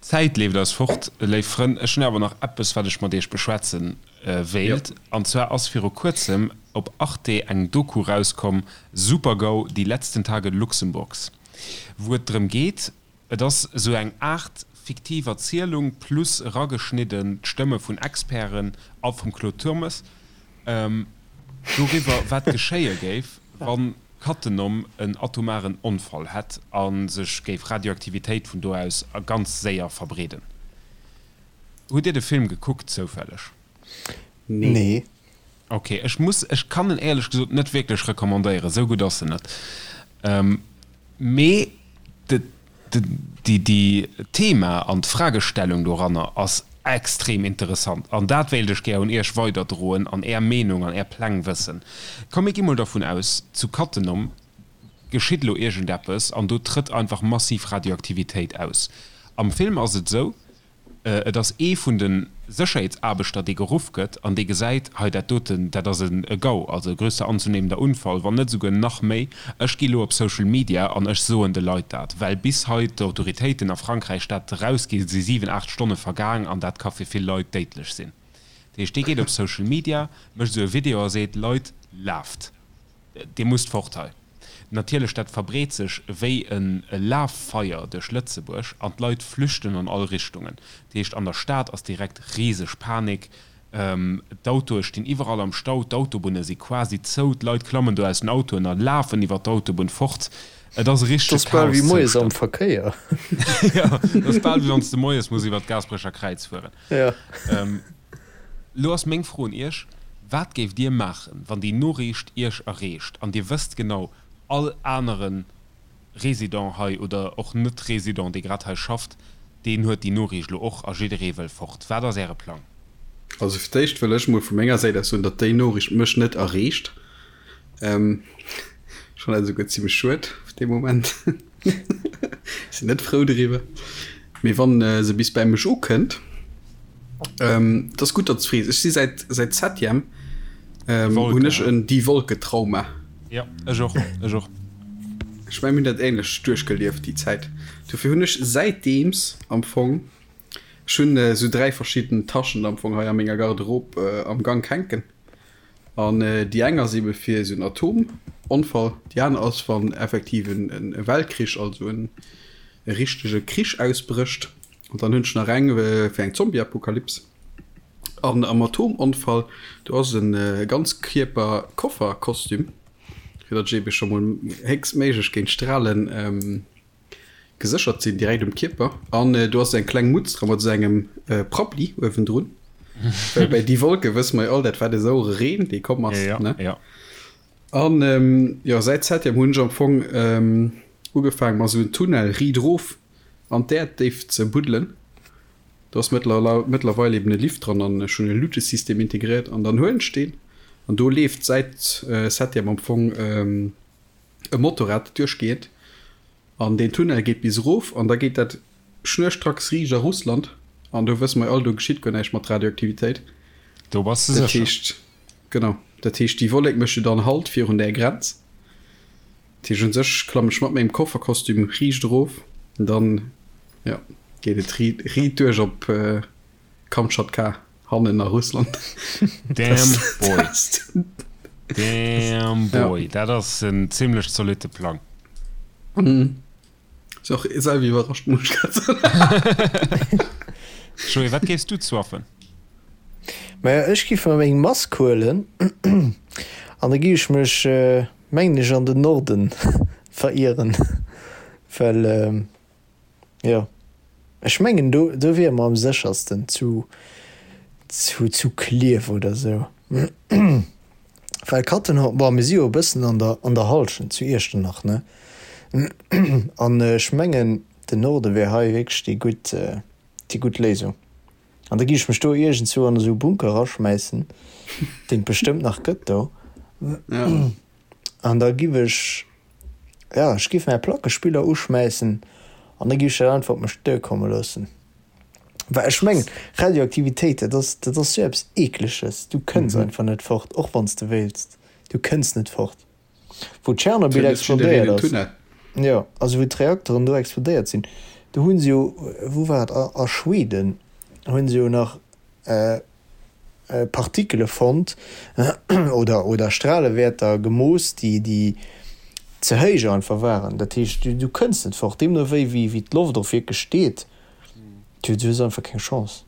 D'Zäit leeft eis fort, léif Frënn. Ech hunn awer nach eppes, wat ech mat iech beschwätze wéilt. An zwar ass viru kuerzem op Arte eng Doku rauskomm, Super-GAU, die letzten Tage Luxemburgs, wou et drëm geet, Et ass esou eng Aart fiktiv Erzielung plus erageschnidden d'Stëmme vun Experten a vum Claude Turmes doriwwer, wat geschéie géif, wa Cattenom en atomaren Onfall hätt a sech géif Radioaktivitéit vun do aus ganz séier verbreeden. Hutt Dir de Film gekuckt zoufälleg? Nee. Ok, ech muss, ech kann en éierlech gesot net wierklech recommandéieren, esou gutt ass en net. Mee de, de, déi, déi Thema an d'Fragestellung doranner ass extrem interessant an dat wéilt ech gär un iech weiderdroen an är Meenung an är Pläng wëssen. Komm mir gi mol dervun aus, zu Cattenom geschitt elo iergendeppes an do trëtt einfach massiv Radioaktivitéit aus. Am Film ass et esou, Et ass ee vun de Sécherheetsaarbechter, dee geruff gëtt an dee gesäit, hei dat doten, dat ass e GAU, also e größer anzunehmender Unfall, wann net esouguer nach méi. Ech gi lo op Social Media an ech soen de Leit dat, well bis hei d'Autoritéiten a Frankräich dat erausginn, si 7, 8 Stonne vergaang an dat ka fir vill Leit déidlech sinn. Dat heescht, dee geet op Social Media, mécht esou e Video a seet, Leit, laaft! Dir musst fort hei. Natierlech, dat verbreet sech wéi e Laffeier duerch Lëtzebuerg an d'Leit flüchten an all Richtungen. Dat heescht, an der Stad ass direkt riseg Panik, d'Autoe stinn iwwerall am Stau, d'Autobunne si quasi zou, d'Leit klammen do aus den Autoen a lafen iwwer d'Autobunn fort. Et ass e richtege Dat ass bal wéi moies am Chaoszustand. Verkéier. Jo, dat ass bal wéi wann s de moies muss iwwer d'Gaasperecher Kräiz fueren. Jo. Lo ass meng Fro un Iech, Wat géift Dir maachen, wann déi Noriicht Iech erreecht an Dir wësst genau, all anere Resident hei oder och Net-Resident, dee grad hei schafft, deen huet déi Noriicht lo och a jidderee wëll fort. Wat ass Äre Plang? Also fir d'éischt wëll ech mol vu menger Säit aus soen, datt déi Noriicht mech net erreecht. Ech fannen dat esouguer zimmlech schued op dee Moment. Ech sinn net frou driwwer. Mee wann se bis bäi mech ukënnt, et ass gutt, datt s frees. Ech si säit säit Septième hunn ech en Die Wolke-Trauma. Jo, ech och, ech och. Ech mengen, mir hunn dat änlech duerchgelieft déi Zäit. Dofir hunn ech säitdeems am Fong, ech hunn esou 3 verschidden Taschen am Fong hei a menger Garderobe am Gank hänken. An déi eng ass ebe fir esou en Atomonfall, déi aner ass, wann effektiv e Weltkrich, also e richtege Krich ausbrécht. An dann hunn ech nach eng fir eng Zombieapokalyps. An am Atomonfall, do ass e Ganzkierper-Koffer-Kostüm, fir datt ech ebe scho mol héchstméiglech géint Stralen Geséchert sinn direkt um Kierper an do ass eng kleng Mutz dra mat esou engem Prabbli uewendrun. Well bei Die Wolke wësse mer jo all, dat war de sauere Reen, dee komm ass, Ja, ne? ja. An jo, säit Septième hunn ech am Fong ugefaangen, mer esou en Tunnel riit erof an d'Äerddéift ze buddelen. Do ass mëttlerweil eben e Lift dran an ech hunn e Lutesystem integréiert an dann huelen ech deen an do leeft säit Septième am Fong e Motorrad duerchgeet an deen Tunnel geet bis erof an da geet dat schnurstracks riicht a Russland an do wësse mer jo all, do geschitt guer näischt mat Radioaktivitéit. Do bass de Dat sécher. heescht, genau, dat heescht déi Wollek mécht jo dann Halt virun där Grenz. Dat heescht un sech klamm ech mat mengem Kofferkostüm riicht erof an dann, jo, geet et riit duerch op Kamtschatka. Hannen a Russland. Damn boy. Damn boy. Dat ass en zimlech zolitte Plang. Ass och selwer iwwerrascht, muss ech grad soen. Joé, wat géifs du zwaffen? Maja, ech giff mer meng Mask huelen an da giff ech mech, mengen ech, an den Norden. verieren, well jo ech mengen do do wiere mer am séchersten zu zu zu Klierf oder sou. Well Cattenom, bon mir si jo e bëssen an der an der Hallschent zu Iechternach ne, an ech mengen den Norde wär hei wierklech déi gutt déi gutt Léisung. An da gi ech mech do iergendzwou an esou e Bunker eraschmäissen, deen et bestëmmt nach gëtt do. An da giff ech, jo, ech giff mäi Plackespiller uschmäissen an da giff ech dat einfach op mech duerkomme loossen. Well ech mengen, Radioaktivitéit, dat ass, dat ass sou eppes Eekleges. Du kënns einfach net fort, och wann s de wéilts. Du kënns net fort. Wou Tschernobyl explodéiert ass, jo, also wou d'Reakteren do explodéiert sinn, do hu se jo, wou war et, a Schweden hu se jo nach Partikele fonnt oder oder Stralewäerter gemooss, déi déi ze héich einfach waren. Dat heescht, du kënns net fort, deemno wéi wéi d'Loft och wierklech steet, du hues einfach keng Chance.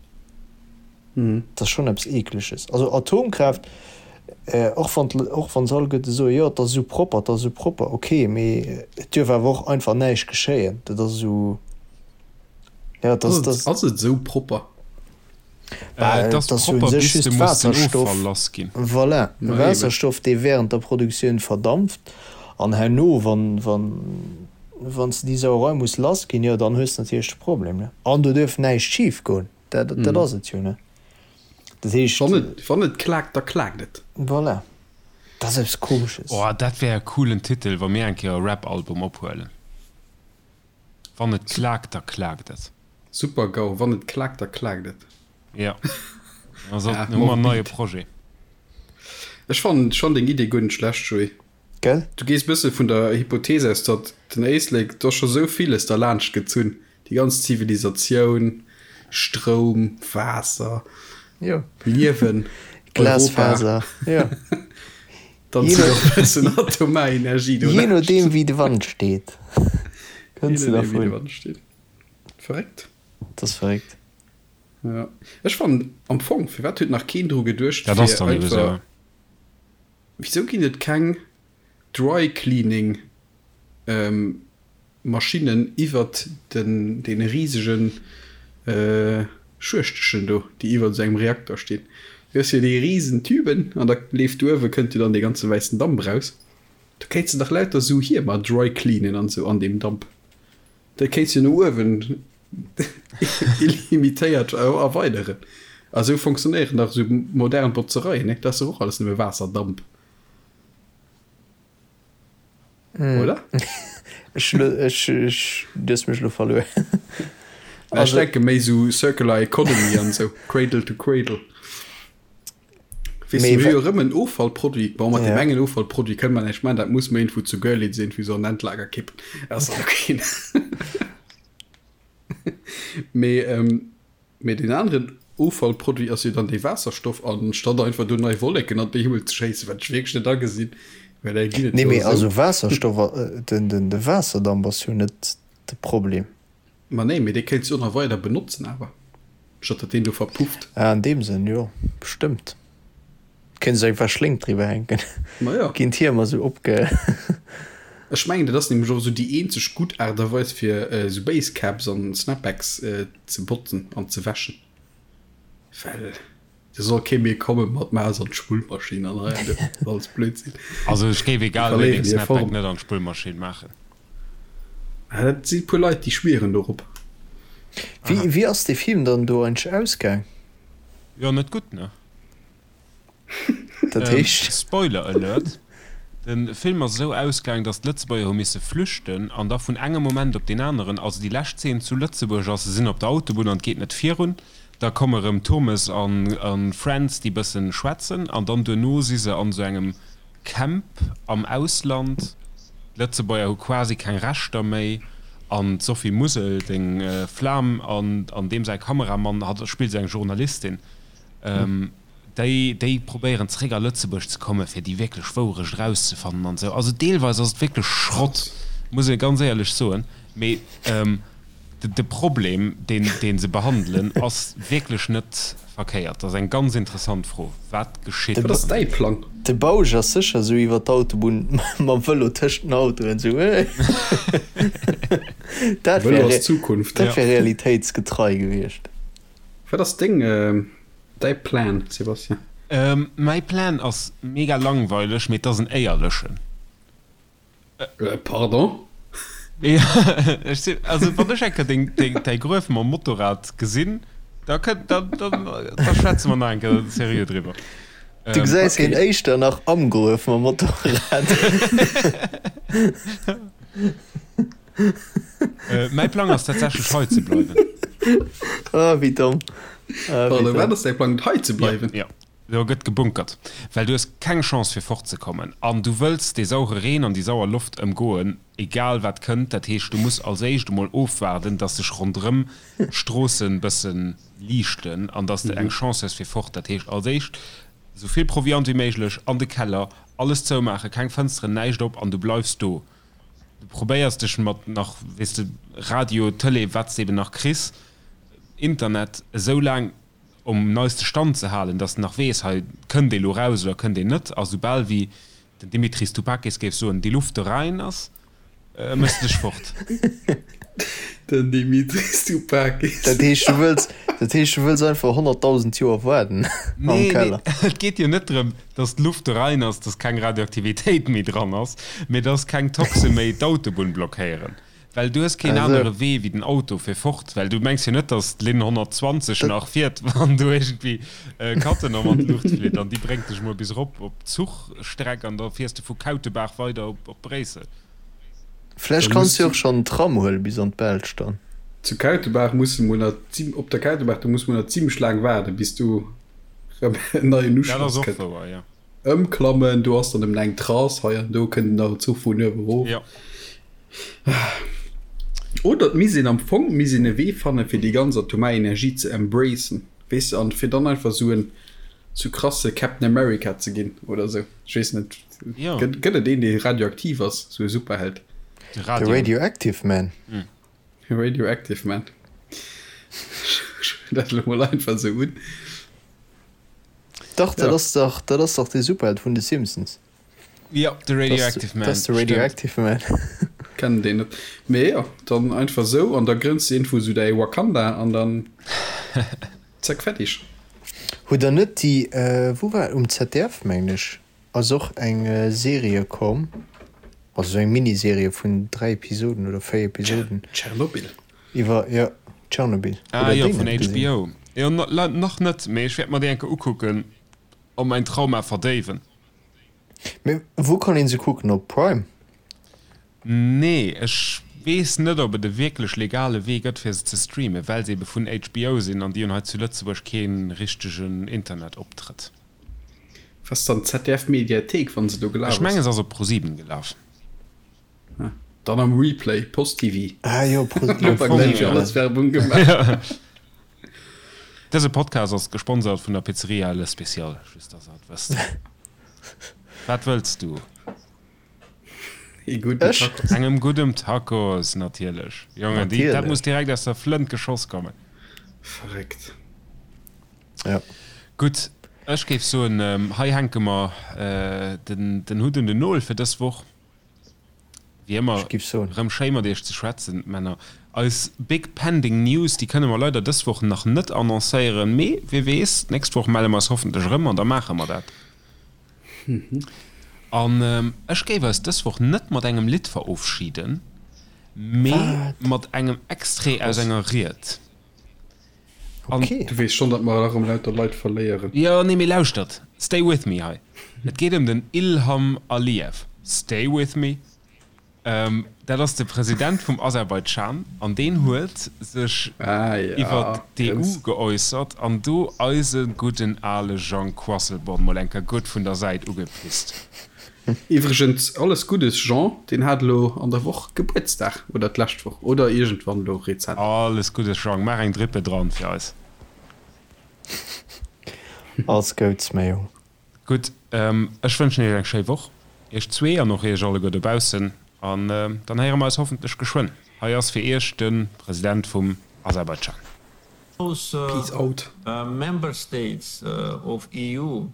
Dat ass schonn eppes Eekleges. Also Atomkraaft, och wann och wann se alleguerte soen, jo et ass esou propper, et ass esou propper, ok, mee et duerf awer och einfach näischt geschéien. Dat ass esou, jo et ass, dat. Ass et esou propper? Bah, et ass jo u sech just Waasserstoff, voilà, Waasserstoff, dee wärend der Produktioun verdampft an herno, wann, wann, wann s de déi Sauerei muss lassginn, jo dann hues de natierlech de Problem, ne. An do duerf näischt schifgoen. Dat, dat ass et jo, ne? Dat heescht. Wann et, wann et klaakt, da klaakt et. Voilà. Dat ass eppes Komesches. Oh, dat wär e coolen Titel, wa mir eng Kéier e Rap-Album ophuelen. Wann et klaakt, da klaakt et. Super-GAU, Wann et klaakt, da klaakt et. Jo. Da sollten, hu mer en neie Projet. Ech fannen schonn deng Idee guer net schlecht, Joé. Gell? Du gees bësse vun der Hypothese aus, datt den Éislek, do ass scho sou villes derlaanscht gezunn, déi ganz Zivilisatioun, Stroum, Waasser, Jo. Liewen, Europa. Glasfaser, jo. Dann zitt och e bëssen atomar Energie do Jee nodeem wéi de Wand steet, kënns de dervun. Verréckt. Dat ass verréckt. Jo. Ech fannen am Fong, firwat huet nach keen dru geduecht, Dat ass dann ebe sou. Wisou ginn et keng Dry Cleaning Maschinnen iwwert den deene risegen Schuechtechen do, déi iwwert esou engem Reakter stinn? Du hues jo déi risen Tüben an da leeft uewe kënnt jo dann dee ganze wäissen Damp raus. Do kéints de dach lauter esou Hiemer dry cleanen an esou an deem Damp. Dat kéints jo no uewen illimitéiert erweideren. A sou fonctionnéieren dach esou modern Botzereien, ne? Dat ass dach och alles nëmme Waasserdamp. Oder? Ech, ech, ech, du hues mech elo verluer. Ech denke méi sou Circular Economy an esou, Cradle to Cradle. Weess du, mir hu jo erëm en Offallproduit. Bon, mat deem engen Offallproduit kënne mer näischt maachen, dat muss mer iergendwou zu Görlitz iergendwéi sou an Endlager kippen. Dat ass dann ok. Mee, mee deen aneren Offallproduit ass jo dann dee Waasserstoff. An statt einfach do nei Wolleken an den Himmel ze schéissen, wat ech wierklech net agesinn, well där ginn et Nee, jo mee esou. also Waasserstoff, den, den, de Waasserdamp ass jo net de Problem. Ma nee, mee dee kéints du och nach weider benotzen awer, statt datt deen do verpufft. Ah, an deem Sënn, jo, bestëmmt. Kéints du einfach Schléng driwwer hänken. Ma jo. Ginn d'Hiemer sou opge. Ech mengen, dat ass nämlech och esou déi eenzeg gutt Aart a Weis fir esou Basecaps an Snapbacks ze botzen an ze wäschen. Well do soll kee méi komme mat Maus an d'Spullmaschinn an hei an do. Dat ass alles Blödsinn. Also ech géif egal wéi deng Snapback net an d'Spullmaschinn maachen. Ah, dat si puer Leit, déi schwieren dorop. Wéi, wéi ass dee Film dann do eigentlech ausgaang? Jo, net gutt, ne? Dat heescht? Spoiler Alert, De Film ass esou ausgaang, datt d'Lëtzebuerger hu misse flüchten an da vun engem Moment op deen aneren, also déi lescht Zeen zu Lëtzebuerg ass, se sinn op der Autobunn an et geet net virun, da komme rëm Turmes an Friends, déi bëssen schwätzen an dann duerno si se an esou engem Camp am Ausland. D'Lëtzebuerger hu quasi keng Rechter méi an d'Sophie Musel, deng Flam, an an deem säi Kameramann, hatt spillt esou eng Journalistin, déi déi probéieren zeréck a Lëtzebuerg ze kommen, fir déi wierklech Wourecht erauszefannen an esou. Also deelweis ass et wierklech Schrott, muss ee ganz éierlech soen, mee. De Problem, deen, dee se behandelen, ass wierklech net verkéiert. Dat ass eng ganz interessant Fro. Wat geschitt? Wat ass däi Plang? De Bausch ass sécher esou iwwer d'Autobunn mam Vëlo tëscht den Autoen esou, Hey! Dat Vëlo wär, ass d'Zukunft. dat wär realitéitsgetrei gewiescht. Wat ass deng, däi Plan, Sébastien? Mäi Plan ass mega langweileg, mee et ass en éierlechen. Pardon? Ech sinn, also wann ech eng Kéier deng, deng, däi Gruef mam Motorrad gesinn, da kënnt, da, da, da schwätze mer nach eng Kéier seriö driwwer. Du gesäis hien éischter nach am Gruef mam Motorrad. Mäi Plang ass tatsächlech hei ze bleiwen. Ah, wéi domm. Ah, wéi domm. Wat ass däi Plang, hei ze bleiwen? Jo. Do gëtt gebunkert, well du hues keng Chance fir fort ze kommen an du wëlls dee saure Reen an déi sauer Loft ëmgoen, egal wat kënnt. Dat heescht, du muss als éischt emol ofwaarden, dass sech ronderëm d'Stroossen bësse liichten an dass de eng Chance hues fir fort. Dat heescht, als éischt esou vill Proviant wéi méiglech an de Keller, alles zoumaachen, keng Fënsteren, näischt op an du bleifs do. Du probéiers dech mat nach, weess de, Radio, Tëlee, wat s de eben nach kriss, Internet, esou laang um neiste Stand ze halen, dass en nach weess, hei kënnt ee lo raus oder kënnt een net. A soubal wéi den Dimitris Toupakis géif soen, déi Luft do rein ass, méchs de dech fort. Den Dimitris Toupakis. Dat heescht, du wëlls, dat heescht, du wëlls einfach 100.000 Joer waarden am Nee, nee, Keller? et geet jo net drëm, dass d'Luft do rein ass, dass keng Radioaktivitéit méi dran ass, mee dass keng Toxe méi d'Autobunn blockéieren. Well du hues keen anere Wee wéi den Auto fir fort, well du mengs jo net, datt d'Linn 120 nach fiert, wann do iergendwéi Cattenom an d'Luucht flitt an déi bréngt dech mol bis erop op d'Zuchstreck an da fiers de vu Kautebaach weider op Bréissel. Vläicht kanns du jo och schonn den Tram huele bis an d'Belsch dann. Zu Kautebaach muss de mol nach, op der Kautebaach, do muss mol nach zimlech laang waarden, bis do rëm en neien Dat ass Uschloss och kënnt. wouer, jo. Ëmklammen, do ass dann nëmmen eng Trace, hei an do kënnt nach en Zuch vun uewe erof. Jo. Oder et misst een am Fong misst een e Wee fannen, fir déi ganz atomar Energie ze embracen, weess de, an fir dann einfach esou en sou krasse Captain America ze ginn oder esou. Ech weess net, Jo. gëtt gëtt et een, dee radioaktiv ass, esou e Superheld? De De Radio. Radioactive Man. Radioactive Man. Ech huelen dat elo mol einfach esou un. Dach, dat Ja. ass dach, dat ass dach dee Superheld vun de Simpsons. Jo, de Radioactive Man. Dat ass de Radioactive Man. Kennen deen net. Mee jo, dann einfach sou an da grënns de iergendwou sou däi Wakanda an dann zack fertig. Hutt der net déi, wou war et, um ZDF mengen ech, ass och eng Serie komm, also sou eng Miniserie vun 3 Episoden oder 4 Episoden. Tschernobyl. Iwwer, jo, Tschernobyl. Ah Hutt der jo, déi vun net gesinn? HBO. Jo, nach net, mee ech wäert mer déi eng Kéier ukucken a mäin Trauma verdéiwen. Mee wou kann een se kucken? Op Prime? Nee, ech weess net op et e wierklech legale Wee gëtt fir se ze streamen, well se ebe vun HBO sinn an déi hunn hei zu Lëtzebuerg kee richtegen Internetoptrëtt. Was dann d'ZDF Mediathéik wann se do gelaf Ech mengen ass? se ass op ProSieben gelaf. Ah, dann am Replay, Post TV. Ah jo, Am Fong jo. Alles Werbung gemaach. Dëse Podcast ass gesponsert vun der Pizzeria Le Special, just dass der et wësst. Wat wëlls du? Ee gudden Ech? Tacos. Engem guddem Tacos, natierlech. Jongen, déi, dat Natierlech. muss direkt aus der Flënt geschoss kommen. Verréckt. Ja. Gutt, ech géif soen, hei hänke mer den, den Hutt un den Nol fir dës Woch. Wéi ëmmer, Ech giff soen. rëm schéi mat iech ze schwätzen, Männer. Eis big pending News, déi kënne mer leider dës Woch nach net annoncéieren, mee wie weess, d'nächst Woch melle mer eis hoffentlech erëm an da maache mer dat. An ech géif eis dës Woch net mat engem Lidd verofschiden, mee mat engem Extrait aus enger Ried. An okay. Du weess schonn, datt mer erëm lauter Leit verléieren. Jo, nee, mee lauschtert, stay with me hei. Et geet ëm den Ilham Aliyev. Stay with me. Dat ass de President vum Aserbaidschan an deen huet sech Ah, ja, iwwert d'EU ganz. geäussert an do eise gudden ale Jean Quasselborn mol eng Kéier gutt vun der Säit ugepisst. Iwwregens, alles Guddes Jean, deen hat elo an der Woch Gebuertsdag, oder d'lescht Woch, oder iergendwann elo rezent. Alles Guddes Jean, maach eng Drippe dran fir eis. Alles Gouds mäi Jong. Gutt, ech wënschen iech eng schéi Woch, iech zwee an och iech alleguer dobaussen. An dann héiere mer eis hoffentlech geschwënn. Hei ass fir Iech de President vum Aserbaidschan. Peace out. Member states of EU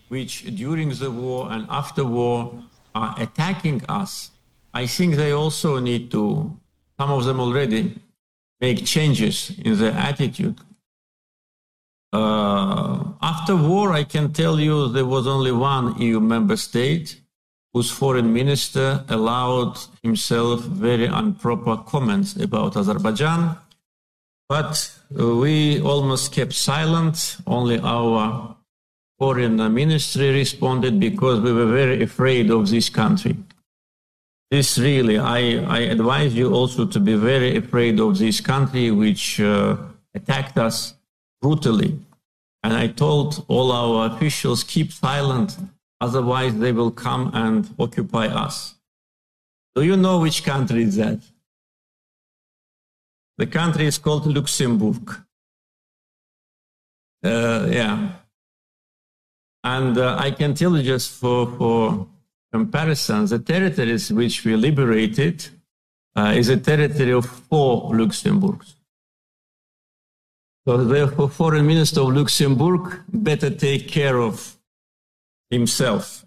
which during the war and after war are attacking us, I think they also need to, some of them already, make changes in their attitude. Uh, after war, I can tell you there was only one EU member state whose foreign minister allowed himself very improper comments about Azerbaijan. But we almost kept silent. Only our foreign ministry responded because we were very afraid of this country. This really, I, I advise you also to be very afraid of this country which uh, attacked us brutally. And I told all our officials, keep silent, otherwise they will come and occupy us. Do you know which country is that? The country is called Luxembourg. Uh, yeah. And uh, I can tell you just for, for comparison, the territories which we liberated uh, is a territory of four Luxembourgs. So therefore, foreign minister of Luxembourg better take care of himself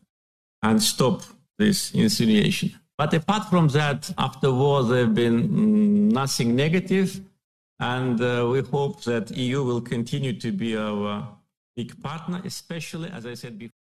and stop this insinuation. But apart from that, after war, there have been mm, nothing negative. And uh, we hope that EU will continue to be our big partner, especially, as I said before.